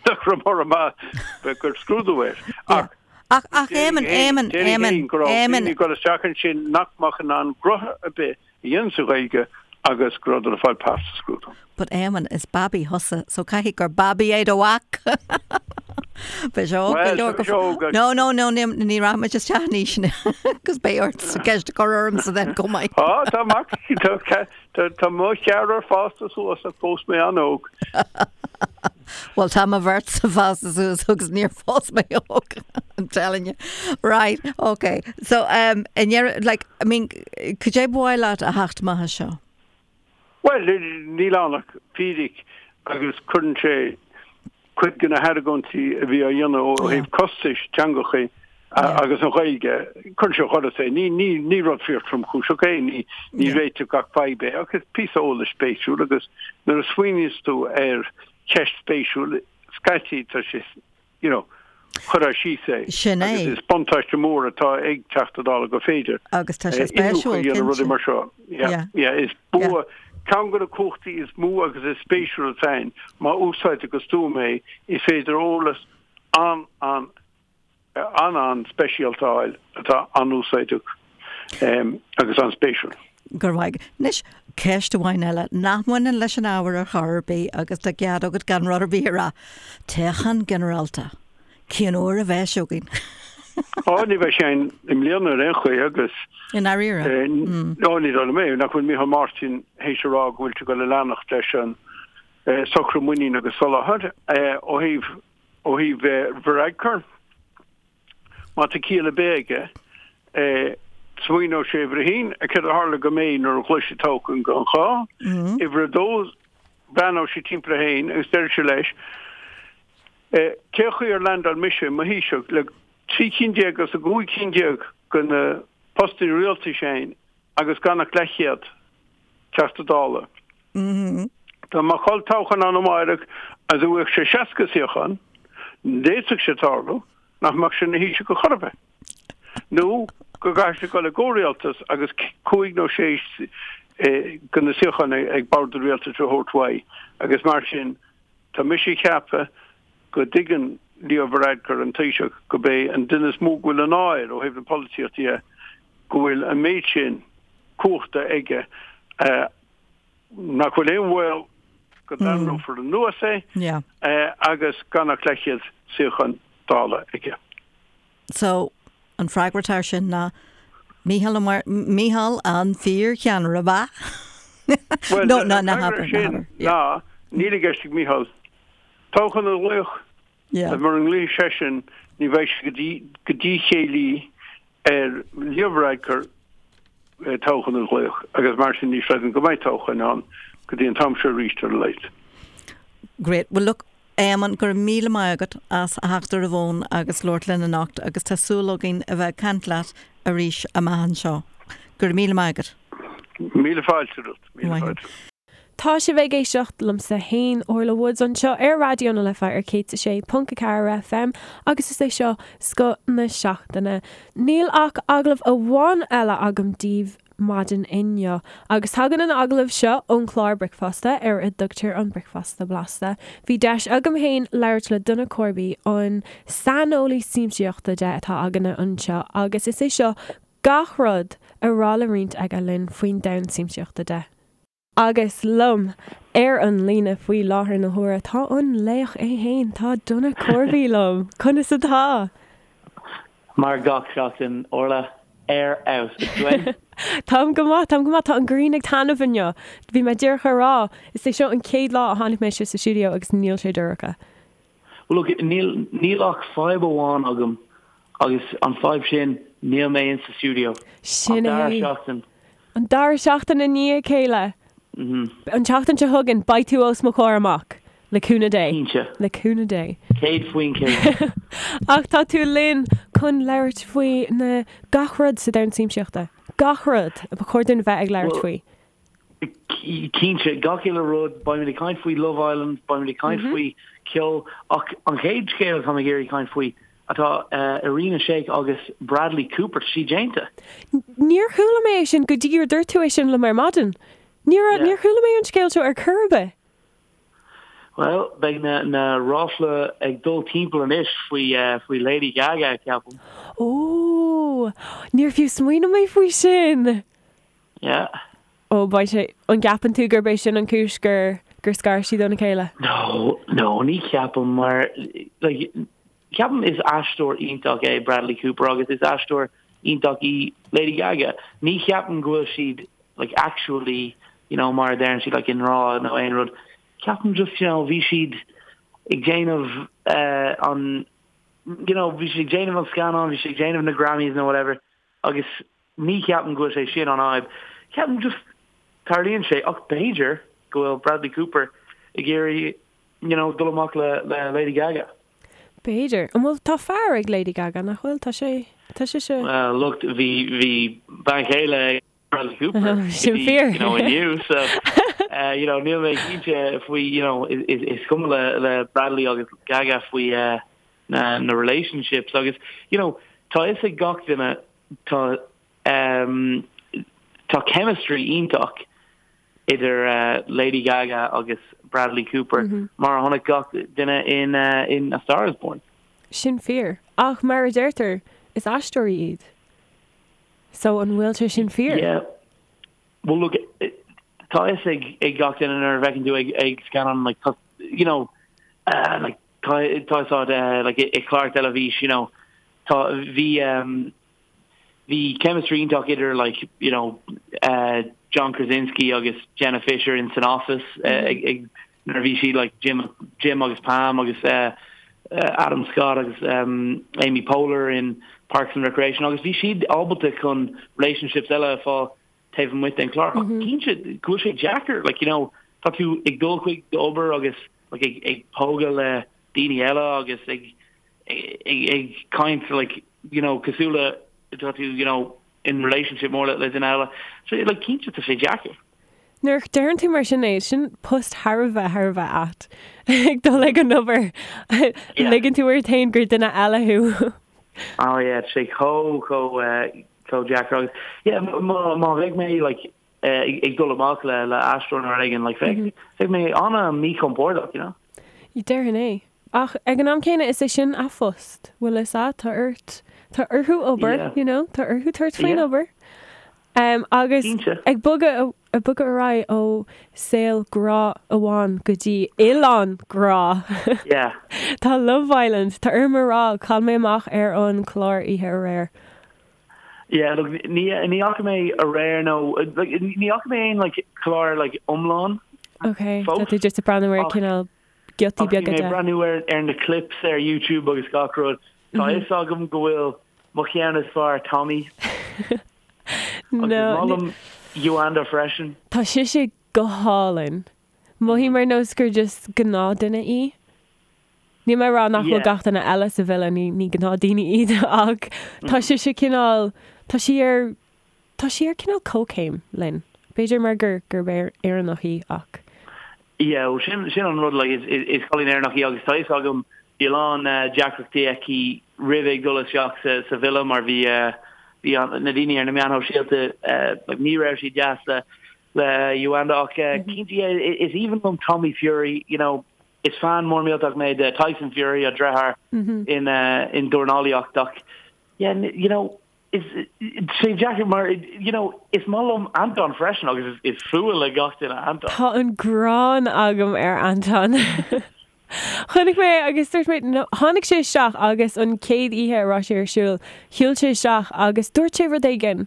nach raibh mura maith gur scrúdú air. Ach Ach, ach, Éamonn, Éamonn, Éamonn, go raibh daoine ag dul isteach ansin nach mbeadh in ann gnoithe ar bith a dhéanamh sa Ghaeilge agus go rabhadar ag fáil pas sa scrúdú. But Éamonn, is babaí thusa, so caithfidh gur babaí é do mhac! Beidh sé óg go leor go. No, no, no, ní, ní rachaidh muid isteach in aois agus beidh ort ceist a chur ormsa then chomh maith. Á, tá mac, tá, tá, tá mo cheathrar fásta suas ach phós mé an-óg. Bhuel tá mo bheirtse fásta suas agus níor phós mé óg, I'm telling you. Right, okay. So, um, i ndeireadh, like, I mean, cad é ba mhaith leat a theacht amach as seo? Bhuel, níl ann ach fíric agus cuireann sé cuid de na hargóintí a bhí á dhéanamh ó thaobh costais teangacha agus an Ghaeilge, cuireann sé ó dhoras é. Ní, ní, ní rud fíor tromchúiseach é, ní, ní réiteodh gach fadhb é, ach is píosa eolais spéisiúil agus nuair a smaoiníos tú ar cheist spéisiúil, scaití tá sé, you know, cuirtear síos é. Sin é. Agus is buntáiste mór atá ag Teachta Dála gur féidir. Agus tá sé spéisiúil, cinnte. rudaí mar seo. Yeah, yeah, is bua, ceann de na cumhachtaí is mó agus is spéisiúla atá ann, má úsáidtear go stuama é, is féidir eolas an, an, an-an-speisialta a fháil atá an-úsáideach agus an-spéisiúil. Go raibh maith agat. Anois, ceist amháin eile nach mbaineann leis an ábhar ar chor ar bith agus tá cead agat gan rud ar bith a rá. Toghchán ginearálta. Cén uair a bheas sé againn? Ó, ní bheidh sé ann i mbliana ar aon chaoi agus. I ndáiríre? Ó, ní dóigh liom é. Nach bhfuil Micheál Martin théis a rá go bhfuil sé ag dul a leanacht leis an socrú muiníne agus soláthair ó thaobh Ó thaobh Varadkar, má tá ciall ar bith aige, smaoineoidh sé uimhir a haon, céard a tharla do May nuair a ghlaoigh sí toghchán gan ghá. Uimhir a dó, breathnóidh sé timpeall air féin agus déarfaidh sé leis, cén chaoi ar landáil mise i mo Thaoiseach le 13 cinn as an 15 cinn de na postanna rialtais againn agus gan ach leathchéad Teachta Dála. Dá mbeadh olltoghchán ann amáireach agus a bhfaigheadh sé 60 suíochán, d'fhéadfadh sé tarlú nach mbeadh sé ina Thaoiseach ar chor ar bith. Nó go gcaithfidh sé dul i gcomhrialtas agus cúig nó sé de na suíocháin ag bord an rialtais a thabhairt uaidh agus mar sin tá mise ag ceapadh go dtuigeann Leo Varadkar, an Taoiseach, gurb é an duine is mó go bhfuil an ádh air ó thaobh na polaitíochta dhe go bhfuil an méid sin cumhachta aige nach bhfuil aon bhaol go dtarraingeofar anuas é agus gan ach leathchéad suíochán Dála aige. So, an freagra atá air sin ná Mícheál Ó Mícheál an fíorcheannaire, ab ea? Bhuel, No, no, an ná freagra habair, ná sin habair. Yeah. ná níl i gceist ag Mícheál toghchán a ghlaoch. Yeah. Mura nglaofaidh seisean ní bheidh sé go dtí go díchéillí ar Leo Varadkar toghchán a ghlaoch agus mar sin ní chreidim go mbeidh toghchán ann go dtí an t-am seo arís ar a laghad. Great. Well look, Éamonn, go raibh míle maith agat as a theacht ar an bhfón agus labhairt linn anocht agus tá súil againn a bheith ag caint leat arís amach anseo. Go raibh míle maith agat. Míle fáilte romhat. Míle fáilte. Tá sibh ag éisteacht liomsa fhéin, Orla Woods, anseo ar Raidió na Life ar 106.4 FM agus is é seo Scoth na Seachtaine. Níl ach agallamh amháin eile agam daoibh maidin inniu agus tagann an agallamh seo ón chlár Bricfeasta ar a dtugtar an Bricfeasta Blasta. Bhí deis agam fhéin labhairt le Donagh Corby, an saineolaí siamsaíochta de atá againne anseo agus is é seo gach rud a raibh le roinnt aige linn faoin domhan siamsaíochta de. Agus liom ar an líne faoi láthair na huaire tá an laoch é fhéin, tá Donagh Corby liom. Conas atá? Mar gach seachtain, Orla, ar fheabhas. Is tú fhéin? Táim go maith, táim go maith. Tá an ghrian ag taitneamh inniu. Bhí mé díreach a rá, is é seo an chéad lá a tháinig mé isteach sa stiúideo agus níl sé dorcha. Well look, níl, níl ach fadhb amháin agam agus an fadhb sin, níl mé in sa stiúideo. Sin An dara é. seachtain. An dara seachtain i ndiaidh a chéile. An tseachtain seo chugainn, beidh tú os mo chomhair amach. Le cúnamh Dé. Cinnte. Le cúnamh Dé. 100%. Ach tá tú linn chun labhairt faoi na gach rud sa domhan siamsaíochta. Gach rud a ba chóir dúinn a bheith ag labhairt Well, faoi. Cinnte, gach uile rud, beimid ag caint faoi Love Island, beimid ag caint faoi ceol, ach an chéad scéal atá mé ag iarraidh caint faoi atá Irina Shayk agus Bradley Cooper, tá sí déanta. Níor chuala mé é sin go dtí gur dúirt tú é sin liom ar maidin. Níor, níor chuala mé an scéal seo ar chor ar bith. Bhuel, beidh na, na ráflaí ag dul timpeall anois faoi, faoi Lady Gaga, ceapaim. Ó, níor fiú smaoinigh mé faoi sin! Yeah. Ó, beidh sé, an gceapann tú gurb é sin an cúis gur, gur scar siad óna chéile? No, no, ní cheapaim mar, like, ceapaim is aisteoir iontach é Bradley Cooper agus is aisteoir iontach í Lady Gaga. Ní cheapaim go bhfuil siad, like, actually, you know, mar a deireann siad, like, i ngrá nó aon rud. Ceapaim just, you know, bhí siad ag déanamh uh, an, you know, bhí siad ag déanamh an scannán, bhí siad ag déanamh na Grammys nó whatever, agus Ní cheapaim go bhfuil sé sin an fhadhb. Ceapaim just tarlaíonn sé ach b'fhéidir go bhfuil Bradley Cooper ag iarraidh you know dul amach le le Lady Gaga. B'fhéidir. An bhfuil, tá fear ag Lady Gaga, nach bhfuil? Tá sé, tá sise. Well look bhí bhí bean chéile ag Bradley Cooper go Sin dtí fíor. you know inniu so uh, you know níl mé cinnte faoi you know is is is cuma le le Bradley agus Gaga faoi uh, na na relationships agus you know tá fhios ag gach duine Tá tá chemistry iontach idir Lady Gaga agus Bradley Cooper mar a chonaic gach duine in in A Star Is Born. Sin fíor. Ach mar a deirtear, is aisteoirí iad. So an bhfuil sé sin fíor? Yeah. Well look, tá fhios ag ag gach duine nuair a bhfeiceann tú ag ag scannán like tá you know uh, like tá tá fhios agat uh, like i clár teilifís you know Tá, bhí ehm, bhí chemistry iontach idir like, you know, eh, John Krasinski agus Jenna Fischer in san Office eh, ag, ag, nuair a bhí siad like Jim, Jim agus Pam agus eh, eh, Adam Scott agus ehm, Amy Poehler in Parks and Recreation agus bhí siad ábalta chun relationships eile a fáil taobh amuigh den chlár. Ach cinnte go bhfuil sé deacair, like, you know, tá tú ag dul chuig d'obair agus like, ag, ag pógadh le daoine eile agus ag ag ag caint like you know cosúil le tá tú you know in relationship mór le le duine eile so like cinnte tá sé deacair. Nuair a deireann tú mar sin é, sin post thar a bheith thar a bheith ait ag dul ag an obair ligeann tú ort féin gur duine eile thú. Oh yeah, tá sé chomh chomh eh, chomh deacair agus yeah má má bheidh mé like eh, ag dul amach le le aisteoir nó rud éigin like bheidh bheidh mé an-mhíchompordach you know. Déarfainn é. Ach ag an am céanna is é sin a phost, bhfuil fhios a'd, tá ort, tá orthu obair, Yeah. you know, tá orthu tabhairt faoin Yeah. obair. Um, agus Cinnte. ag bogadh, ag bogadh ar aghaidh ó saol grá amháin go dtí oileán grá. Yeah. Tá Love Island, tá orm a rá, chaill mé amach ar an chlár oíche aréir. Yeah, look, ní ní fhaca mé aréir nó like, ní fhaca mé aon like clár like iomlán Ok, fós. tá tú just ag breathnú ar Ach- cineál giotaí Ach bhí beaga mé de. ag breathnú ar ar na clips ar YouTube agus gach rud. Tá fhios agam go bhfuil mo cheann is fearr Tommy agus No, is maith liom Yolanda freisin. Tá sise go hálainn. Mothaím ar nós gur just gnáthduine í. Níl mé ag rá nach bhfuil Yeah. gach duine eile sa villa, ní ní gnáthdhaoine iad ach tá sise cineál, tá sí ar, tá sí ar cineál comhchéim linn. B'fhéidir mar gur gurb Éireannach í ach. Yeah, well sin sin an rud like is is cailín Éireannach í agus tá fhios agam bhí a lán deacrachtaí aici roimh ag dul isteach sa sa villa mar bhí bhí an na daoine ar na meáin shóisialta like ní raibh siad deas le le Yolanda ach cinnte yeah is aoibhinn liom Tommy Fury you know is fan mór millteach mé de Tyson Fury an deartháir in in dornálaíocht ach yeah you know Is sé deacair mar you know is maith liom Anton freisin agus is fuath le gach duine Anton. Tá an ghráin agam ar Anton. Chonaic mé agus dúirt mé no tháinig sé isteach agus an chéad oíche a raibh sé ar siúl, shiúil sé isteach agus dúirt sé rud éigin.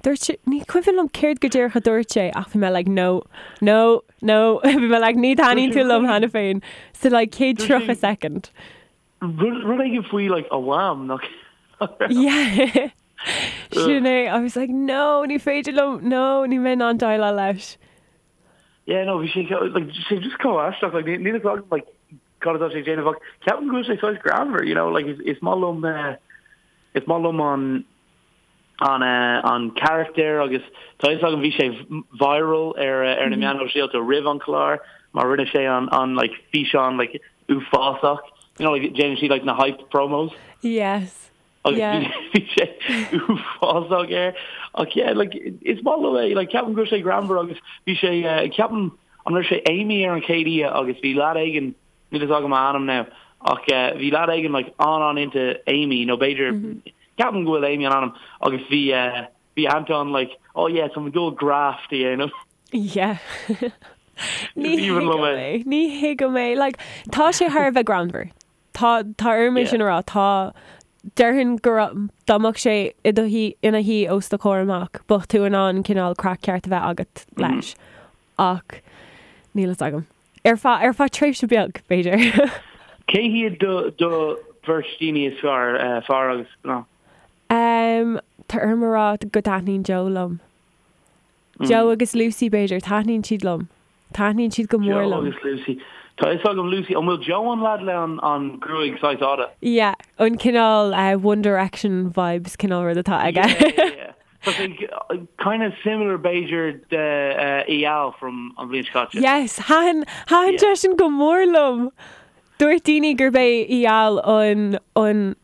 Dúirt sé, ní cuimhin liom céard go díreach a dúirt sé ach bhí mé like no, no, no, bhí mé like ní thaitníonn tú liom cheana féin sa like chéad 30 second. Rud éigin faoi like a mham nach raibh? Yeah. Sin é. I was like no, ní féidir liom, no, níl mé in ann déileáil leis. Yeah, no, bhí sé like sé just chomh aisteach like níl fhios agam like cad atá sé ag déanamh ach ceapaim go bhfuil sé saghas greannmhar, you know, like is is maith liom eh is maith liom an an an carachtar agus tá fhios agam bhí sé viral ar ar na meáin shóisialta roimh an chlár mar rinne sé an an like físeán like uafásach you know like déanann siad like na hype promos. Yes. Agus yeah. bhí sé uafásach air ach yeah like is maith liom é like ceapaim go bhfuil sé greannmhar agus bhí sé uh, ceapaim an raibh sé Amy ar an chéad oíche agus bhí leaid éigin Níl fhios agam a ainm now ach bhí leaid éigin like an-an into Amy nó b'fhéidir ceapaim go bhfuil Amy an ainm agus bhí bhí Anton like oh yeah tá mé ag dul graft a dhéanamh. Yeah. Ní thuigim é. Ní thuigim é. Like tá sé thar a bheith greannmhar. Tá tá orm é sin a rá. Tá déarfainn go raibh dá mbeadh sé i do shuí ina shuí os do chomhair amach bheadh tú in ann cineál craic ceart a bheith agat leis. Ach níl fhios agam. Ar feadh, ar feadh tréimhse beag, b'fhéidir. Cé hiad do, do bheirt daoine is fearr, fear agus mná? Em, tá orm a rá go dtaitníonn Joe liom. Joe agus Lucy, b'fhéidir, taitníonn siad liom. Taitníonn siad go mór Joe liom. agus Lucy. Tá fhios agam Lucy, an bhfuil Joe an leaid le an, an gruaig saghas fhada? Yeah, an cineál eh, One Direction vibes cineál rud atá aige. Yeah, yeah, yeah. Tá sé kind of similar b'fhéidir de Eyal from an bhliain seo caite. Yes, thaitin, thaitin sé sin go mór liom. Dúirt daoine gurb é Eyal an, an,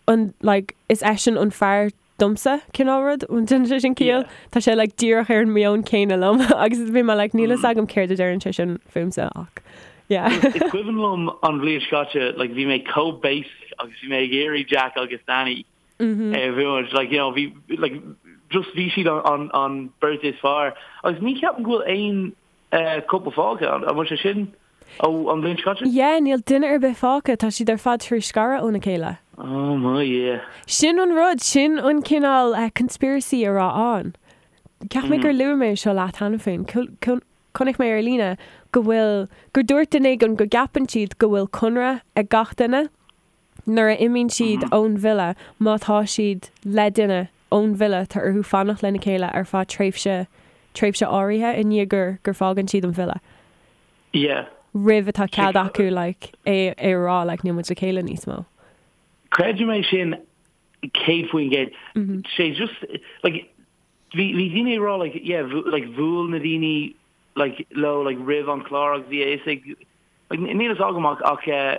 an, like, is eisean an fear domsa, cineál rud, an ndéanann sé sin ciall? Tá sé like díreach ar an meon céanna liom agus bhí mé like níl fhios agam céard a deireann sé sin fúmsa ach yeah. Is cuimhin liom an bhliain seo caite, like bhí mé chomh basic agus bhí mé ag iarraidh Jack agus Danny a bhuaint. Like, you know, bhí, like, just bhí siad an, an beirt is fearr. Agus ní cheapaim go bhfuil aon uh, couple fágtha, an bhfuil sé sin ó an bhliain seo caite? Yeah, níl duine ar bith fágtha, tá siad ar fad tar éis scaradh óna chéile. Oh my, yeah. Sin an rud, sin an cineál uh, conspiracy a raibh ann. Cheap mé gur luaigh mé seo leat cheana féin. Chonaic mé ar líne go bhfuil, gur dúirt duine éigin go gceapann siad go bhfuil conradh ag gach duine. Nuair a imíonn siad ón villa, má tá siad le duine ón villa, tá orthu fanacht lena chéile ar feadh tréimhse, tréimhse áirithe i ndiaidh gur, gur fágann siad an villa. Yeah. Roimh atá cead acu like é, é a rá like níl muid le chéile níos mó. Creidim é sin 100%. Sé just like bhí, bhí daoine ag rá like yeah like bhuail na daoine like leo like roimh an chlár agus bhí a fhios ag like níl fhios agam ach ach eh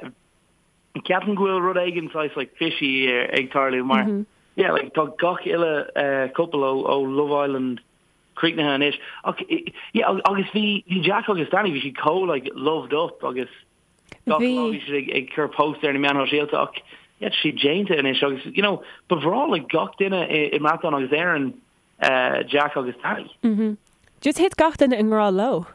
Ceapaim go bhfuil rud éigin saghas like fishy ag tarlú mar yeah like tá gach uile couple ó ó Love Island críochnaithe anois ach yeah agus bhí bhí Jack agus Danny bhí siad chomh like loved up agus gach lá bhí siad ag ag cur post ar na meáin shóisialta ach yeah tá siad déanta anois agus you know ba bhreá le gach duine i i mBreatain agus Éirinn Jack agus Danny. Just thit gach duine i ngrá leo.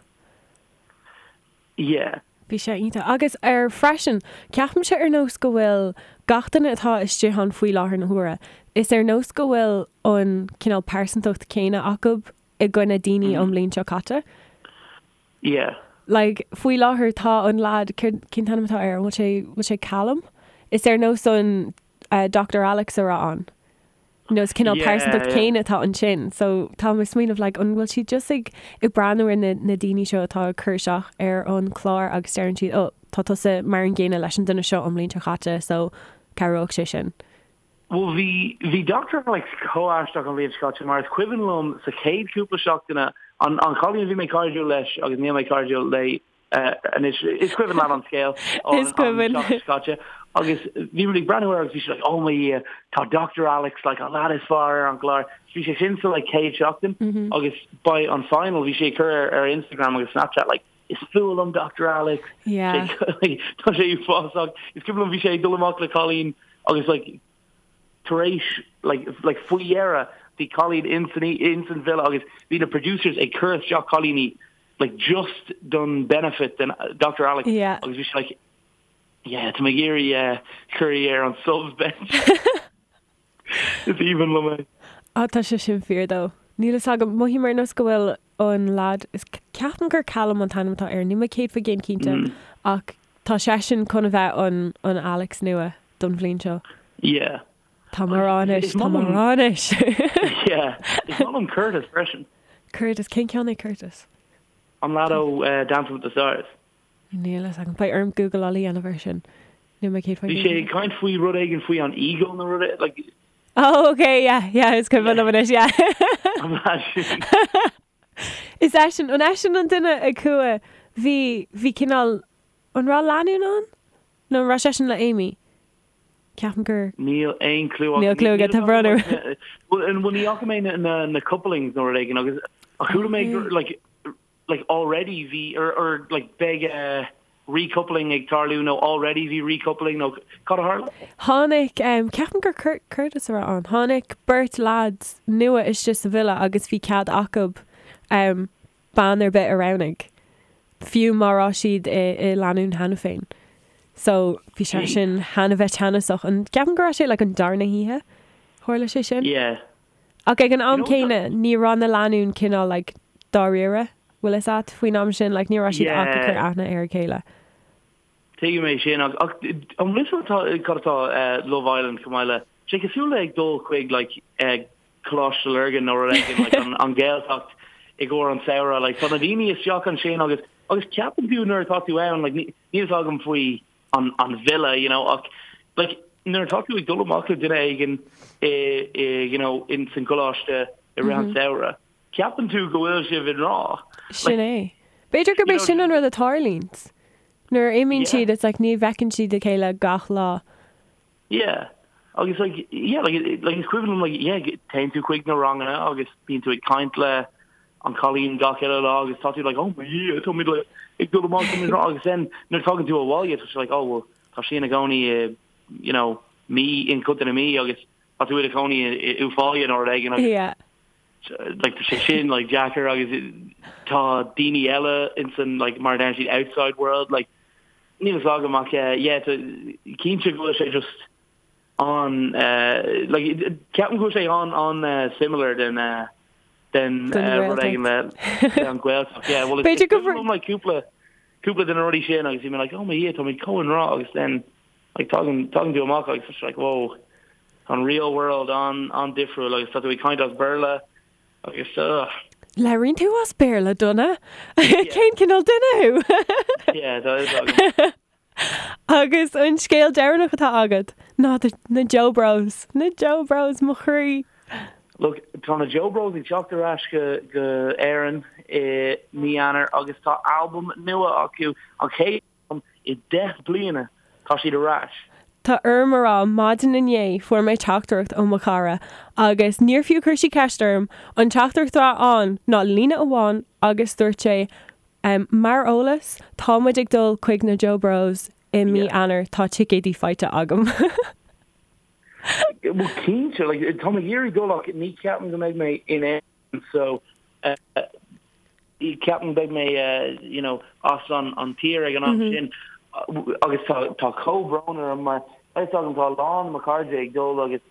Yeah. Bhí sé iontach. Agus ar freisin, ceapaimse ar nós go bhfuil gach duine atá istigh ann faoi láthair na huaire, is ar nós go bhfuil an cineál pearsantacht céanna acu i gcoinne daoine ón mbliain seo caite. Yeah. Like, faoi láthair tá an lad, céard, cén t-ainm atá air, an bhfuil sé, bhfuil sé Callum? Is ar nós an uh, Dr. Alex a raibh ann. You know, is cineál pearsantacht céanna atá ansin. So tá mé ag smaoineamh like an bhfuil siad just ag ag breathnú ar na na daoine seo atá ag cur isteach ar an chlár agus deireann siad oh tá tusa mar an gcéanna leis an duine seo an bhliain seo chaite so cabhróidh sé sin. Bhuel bhí bhí Doctor Alex chomh aisteach an bhliain seo caite mar is cuimhin liom sa chéad cúpla seachtaine an an chailín a bhí mé cairdiúil leis agus níl mé cairdiúil léi. Anois, is cuimhin leat an scéal Is cuimhin. an tseachtain seo caite. Agus bhí muid ag breathnú air agus bhí sé like, oh mo Dhia, tá Dr. Alex, like, an lad is fearr ar an gclár. Bhí sé sin sa like chéad seachtain agus by an final bhí sé ag cur ar, ar Instagram agus Snapchat like, is fuath liom Dr. Alex. Yeah. Sé, tá sé uafásach. Is cuimhin liom bhí sé ag dul amach le cailín agus like tar éis like, like faoi dheireadh bhí cailín in san, in san villa agus bhí na producers ag cur isteach cailíní like just don benefit den Dr. Alex Yeah. agus bhí sé like yeah tá mé ag iarraidh uh, cur í ar an subs bench. Is aoibhinn liom é. Á tá sé sin fíor though. Níl fhios agam, mothaím ar nós go bhfuil an lad, is ceapaim gur Callum an t-ainm atá air, níl mé 100% cinnte ach tá seisean chun a bheith an an Alex nua don bhliain seo. Yeah. Tá mé ag rá anois, tá mé ag rá anois. Yeah. Is maith liom Curtis freisin. Curtis, cén ceann é Curtis? An lad ó uh, Dancing with the Stars. Níl fhios agam. Beidh orm Googleáil a dhéanamh air sin. Níl mé 100% Bhí sé ag caint faoi rud éigin faoi an ego nó rud é- like Oh, okay, yeah, yeah, is cuimhin liom anois, yeah. an lad sin. Is eisean, an eisean an duine a chuaigh, bhí, bhí cineál, an raibh lánúin ann? Nó an raibh seisean le Amy? Ceapaim gur. Níl aon clue Níl clue agat, tá brón orm. Bhuel, ní fhaca mé na na couplings nó rud éigin agus ach chuala mé gur like like already bhí or or like beidh eh recoupling ag tarlú nó already bhí recoupling nó cad a tharla? Tháinig, ceapaim gur Curtis a raibh ann, tháinig beirt lads nua istigh sa villa agus bhí cead acu bean ar bith a roghnaigh, fiú má raibh siad i lánúin cheana féin. So bhí sé sin thar a bheith teannasach. An ceapaim go raibh sé like an darna hoíche tharla sé sin? Yeah. Ach ag an am céanna ní raibh na lánúin cineál like dáiríre, bhfuil fhios a't, faoin am sin, like ní raibh siad ach ag cur aithne ar a chéile. Tuigim é sin ach ach an bhfuil fhios agat cad atá Love Island chomh maith le sé cosúil le ag dul chuig like Coláiste Lurgan nó rud éigin like an an Ghaeltacht i gcomhair an samhradh like tá na daoine isteach ansin agus agus ceapann tú nuair atá tú ann like níl fhios agam faoi an an villa you know ach like nuair atá tú ag dul amach le duine éigin i i you know in san gcoláiste i rith an samhradh ceapann tú go bhfuil sibh i ngrá. Sin é. B'fhéidir gurb é sin an rud a tharlaíonn. Nuair a imíonn siad it's like ní bhfeiceann siad a chéile gach lá. Yeah. Agus like yeah like like is cuimhin liom like yeah téann tú chuig na ranganna agus bíonn tú ag caint le an cailín gach uile lá agus tá tú like oh my Dhia tá muid like ag dul amach tá muid agus then nuair tagann tú abhaile tá sé like oh well tá sí ina cónaí i you know Mí in Contae na Mí agus tá tú i do chónaí i Uíbh Fhailí nó rud éigin agus Yeah. like tá sé sin like deacair agus tá daoine eile in san like mar a deireann siad outside world like Níl fhios agam ach yeah tá cinnte go bhfuil sé just an like ceapaim go bhfuil sé an an similar den den rud éigin le an Ghaeltacht yeah well B'fhéidir go bhfuil like cúpla cúpla de na rudaí sin agus bhí mé like oh my Dhia tá muid chomh i ngrá agus then like tagann tagann tú amach agus tá like whoa an real world an an difriúil agus tá tú ag caint as Béarla Agus ugh. Labhraíonn tú as Béarla, Donna? Cén cineál duine thú? Yeah, tá fhios agam. Agus an scéal deireanach atá agat ná na Joe Bros. Na Joe Bros, mo chroí! Look, tá na Joe Bros ag teacht ar ais go go Éirinn i mí Eanáir agus tá albam nua acu, an chéad I 10 bliana tá siad ar ais. Tá orm a rá, maidin inné fuair mé teachtaireacht ó mo chara agus níor fiú chuir sí ceist orm, an teachtaireacht atá ann ná líne amháin agus dúirt sé Mar eolas, tá muid ag dul chuig na Joe Bros i mí Eanáir, tá ticéidí faighte agam. Bhuel cinnte, like, tá mé ag iarraidh dul ach ní ceapaim go mbeidh mé in Éirinn so Ceapaim beidh mé you know as an an tír ag an am sin agus tá tá comhbhrón orm mar tá fhios agam tá a lán de mo chairde ag dul agus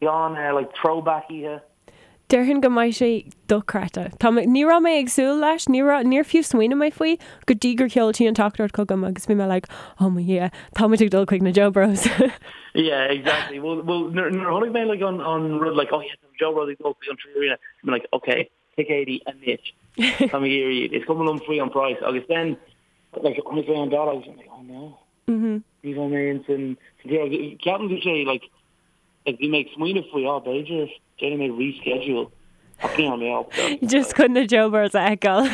gan like throwback oíche. Déarfainn go mbeidh sé dochreidte. Tá mé, ní raibh mé ag súil leis, ní raibh, níor fiú smaoinigh mé faoi go dtí gur sheol sí an teachtaireacht chugam agus bhí mé like oh mo Dhia, tá muid ag dul chuig na Joe Bros. Yeah, exactly. Well, well, nuair nuair a chonaic mé like an an rud like oh yeah, tá Joe Bros ag dul chuig an 3Arena, bhí mé like okay, ticéidí anois. Tá mé ag iarraidh iad. Is cuma liom faoi an price. Agus then, like, chonaic mé an dáta agus I'm like, oh no. Ní bheidh mé in san tír. Ceapaim go sé, like, like, bhí mé ag smaoineamh faoi, oh, b'fhéidir déanfaidh mé reschedule. Ach ní raibh mé ábalta. Just chun na Joe Bros a fheiceáil.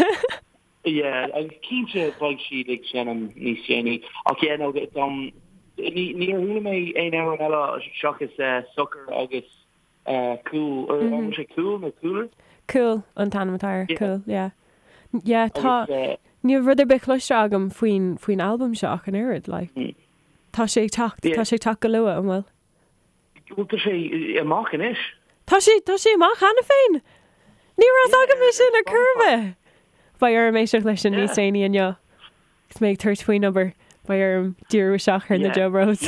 Yeah, agus cinnte beidh siad ag seinm níos déanaí. Ach yeah, no, um, ní, níor chuala mé aon amhrán eile seachas uh, Socair agus uh, Cúl, or an bhfuil sé Cúl nó Cooler? Cúl an t-ainm atá air, Yeah. Cúl, yeah. Yeah, tá, Agus, uh, níl rud ar bith cloiste agam faoin, faoin albam seo ach an oiread, like. Tá sé ag teacht, Yeah. tá sé ag teacht go luath, an bhfuil? Bhuel, tá sé amach anois. Tá sé, tá sé amach cheana féin! Ní raibh fhios agam é sin ar chor ar bith! Beidh orm éisteacht leis sin níos déanaí inniu. Agus mé ag tabhairt faoin obair, beidh orm díriú isteach ar na Yeah. Joe Bros.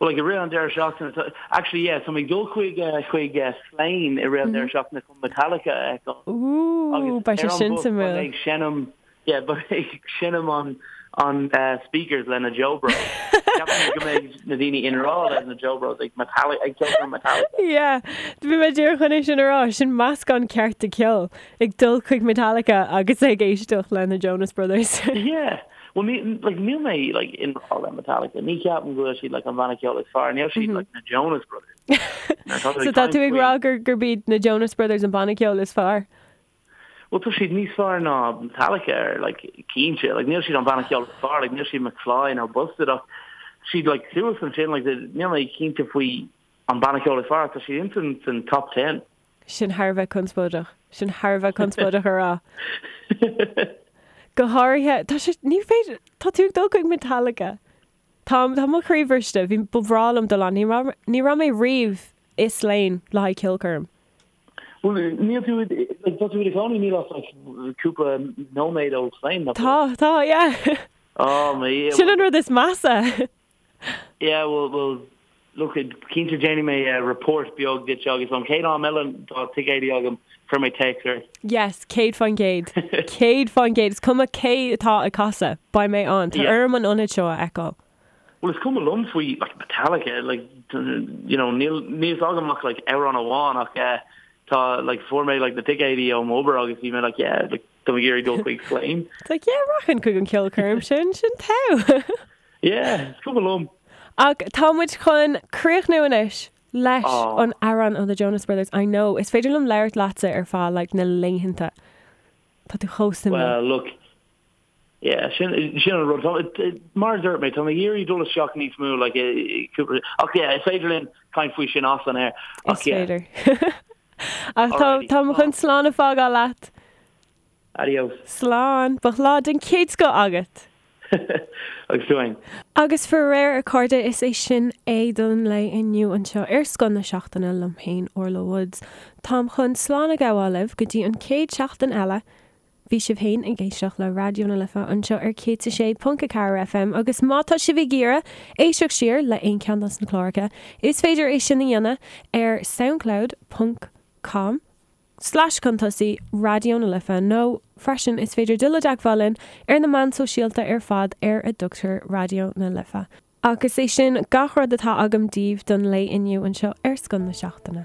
Well, like, i rith an deireadh seachtaine, tá, actually, yeah, tá mé ag dul chuig, eh, chuig, eh, Slane i rith an deireadh seachtaine chun Metallica a fheiceáil. Ooh, Agus beidh sé ar an sin bus, suimiúil. beidh mé ag seinm Yeah, beidh mé ag seinm an an speakers le na Joe Bros. Ceapaim go mbeidh na daoine i ngrá le na Joe Bros ag Metallica, ag ceolchoirm Metallica. Yeah, bhí mé díreach chun é sin a rá, sin meascán ceart de cheol, ag dul chuig Metallica agus ag éisteacht le na Jonas Brothers. Yeah, well ní, like, níl mé like i ngrá le Metallica, ní cheapaim go bhfuil siad like an banna ceoil is fearr, níl siad like na Jonas Brothers. So tá tú ag rá gur gurb iad na Jonas Brothers an banna ceoil is fearr? Bhuel tá siad níos fearr ná Metallica ar like cinnte like níl siad an banna ceoil is fearr like níl siad McFly nó Busted ach siad like suas ansin like níl mé cinnte faoi an banna ceoil is fearr ach tá siad ins an san top ten. Sin thar a bheith conspóideach. Sin thar a bheith conspóideach a rá. Go háirithe, tá sé, ní féidir, tá tú ag dul chuig Metallica. Tá, tá mo chroí bhriste, bhí, ba bhreá liom dul ann, ní raibh, ní raibh mé riamh i Slane le haghaidh ceolchoirm. Bhuel, níl tú, like, tá tú i do chónaí níl ach like cúpla nóiméad ó Slane, nach bhfuil? Tá, tá, yeah. Oh, my, yeah. Sin an rud is measa. Yeah, well, well, look, cinnte déanfaidh mé report beag duit agus an chéad am eile tá ticéidí agam, cuirfidh mé téacs ort. Yes, 100%. 100%. Is cuma cé atá ag casadh, beidh mé ann. Tá orm an ionad seo a fheiceáil. Bhuel, is cuma liom faoi like Metallica, like you know, níl níl fhios agam ach like amhrán amháin ach eh tá like fuair mé like na ticéidí ó m'obair agus bhí mé like yeah, like tá mé ag iarraidh dul chuig Slane. It's like yeah, rachainn chuig an ceolchoirm sin, sin togha. Yeah, is cuma liom. Ach tá muid chun críochnú anois leis Aw. an amhrán ó The Jonas Brothers. I know, is féidir liom labhairt leatsa ar feadh like na laethanta. Tá tú chomh suimiúil. Well, look, Yeah, sin sin an rud. Tá mar a dúirt mé, tá mé ag iarraidh dul isteach níos mó like i cúpla ach yeah, is féidir linn caint faoi sin as an aer. Is Ach yeah. féidir. Ach tá Alrighty. tá mé chun slán a fhágáil leat. Adios. Slán. Bíodh lá den chéad scoth agat. Agus tú fhéin. Agus faraor, a chairde, is é sin é don lae inniu anseo ar Scoth na Seachtaine liom féin, Orla Woods. Táim chun slán a ghabháil libh go dtí an chéad seachtain eile. Bhí sibh féin ag éisteacht le Raidió na Life anseo ar 106.4 FM agus má tá sibh ag iarraidh éisteacht siar le aon cheann dos na cláracha, is féidir é sin a dhéanamh ar soundcloud ponc com slash chun tosaigh Raidió na Life nó freisin is féidir dul i dteagmháil linn ar na meáin sóisialta ar fad ar a dtugtar Raidió na Life. Agus é sin gach rud atá agam daoibh don lae inniu anseo ar Scoth na Seachtaine.